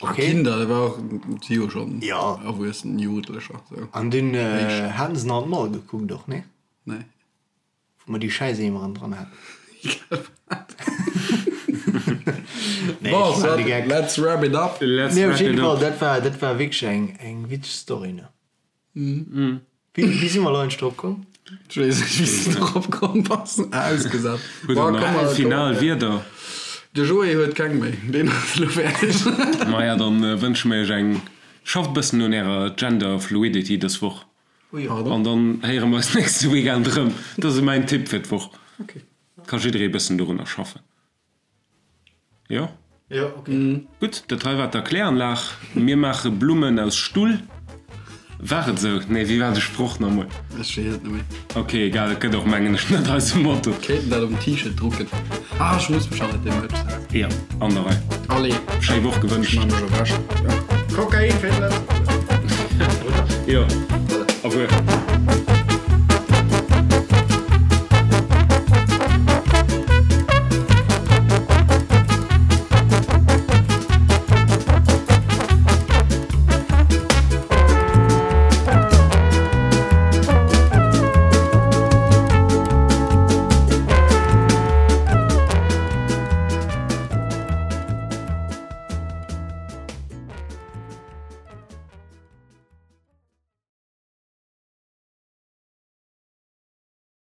S4: A
S2: Okay.
S4: Kinder, dat war och, si jo schonn
S2: Ja.
S4: erwuessen Jugendlecher, sou.
S2: An dunn
S4: Éischt.
S2: haten se nach an d'Mall gekuckt och, ne?
S4: Nee.
S2: Wou mer déi Schäiseemeren dran haten.
S4: Egal wat.
S2: Nee,
S4: Bon,
S2: ech
S4: soit,
S2: maan de Geck.
S4: let's wrap it up.
S3: Let's
S2: Nee, op
S3: wrap
S2: jidde
S3: it
S2: Fall,
S3: up.
S2: dat war, dat war wierklech eng, eng witzeg Story, ne? Wéi, wéi si mer elo eigentlech drop komm?
S4: Ech weess net, wéi s de drop komm bass. Ausgesat.
S3: Huet
S4: Bon,
S3: der
S4: komm
S3: nach
S4: mer, komm
S3: final
S4: mer.
S3: Wierder?
S4: De Joé huet keng méi, deen ass elo fäerdeg.
S3: Maja, dann wënsche mir iech eng, schafft e bëssen un ärer Gender Fluidity dës Woch.
S4: Pardon?
S3: An dann héiere mer eis nächste Weekend erëm. Dat ass mäin Tipp fir d'Woch.
S4: Ok.
S3: Ka jidderee bëssen dorunner schaffen. Jo?
S2: Jo, ok.
S3: Gutt, dat hei war d'Erkläranlag. Mir maache Blummen aus Stull. War et esou? Nee, wéi war de Sproch nach emol?
S4: Ech weess et net méi.
S3: Ok, egal, et gëtt och, mengen ech, net eise Motto.
S4: Kéinten dat op en T-Shirt drucken. Ah, ech muss mech hannert deem Merch setzen.
S3: Jo, an der Rei.
S4: Allez.
S3: Schéi Woch
S4: Ech
S3: gewënscht.
S4: maache mech ewech. Jo. Kokain fir d'Lëtzebuerger.
S3: Jo, au revoir.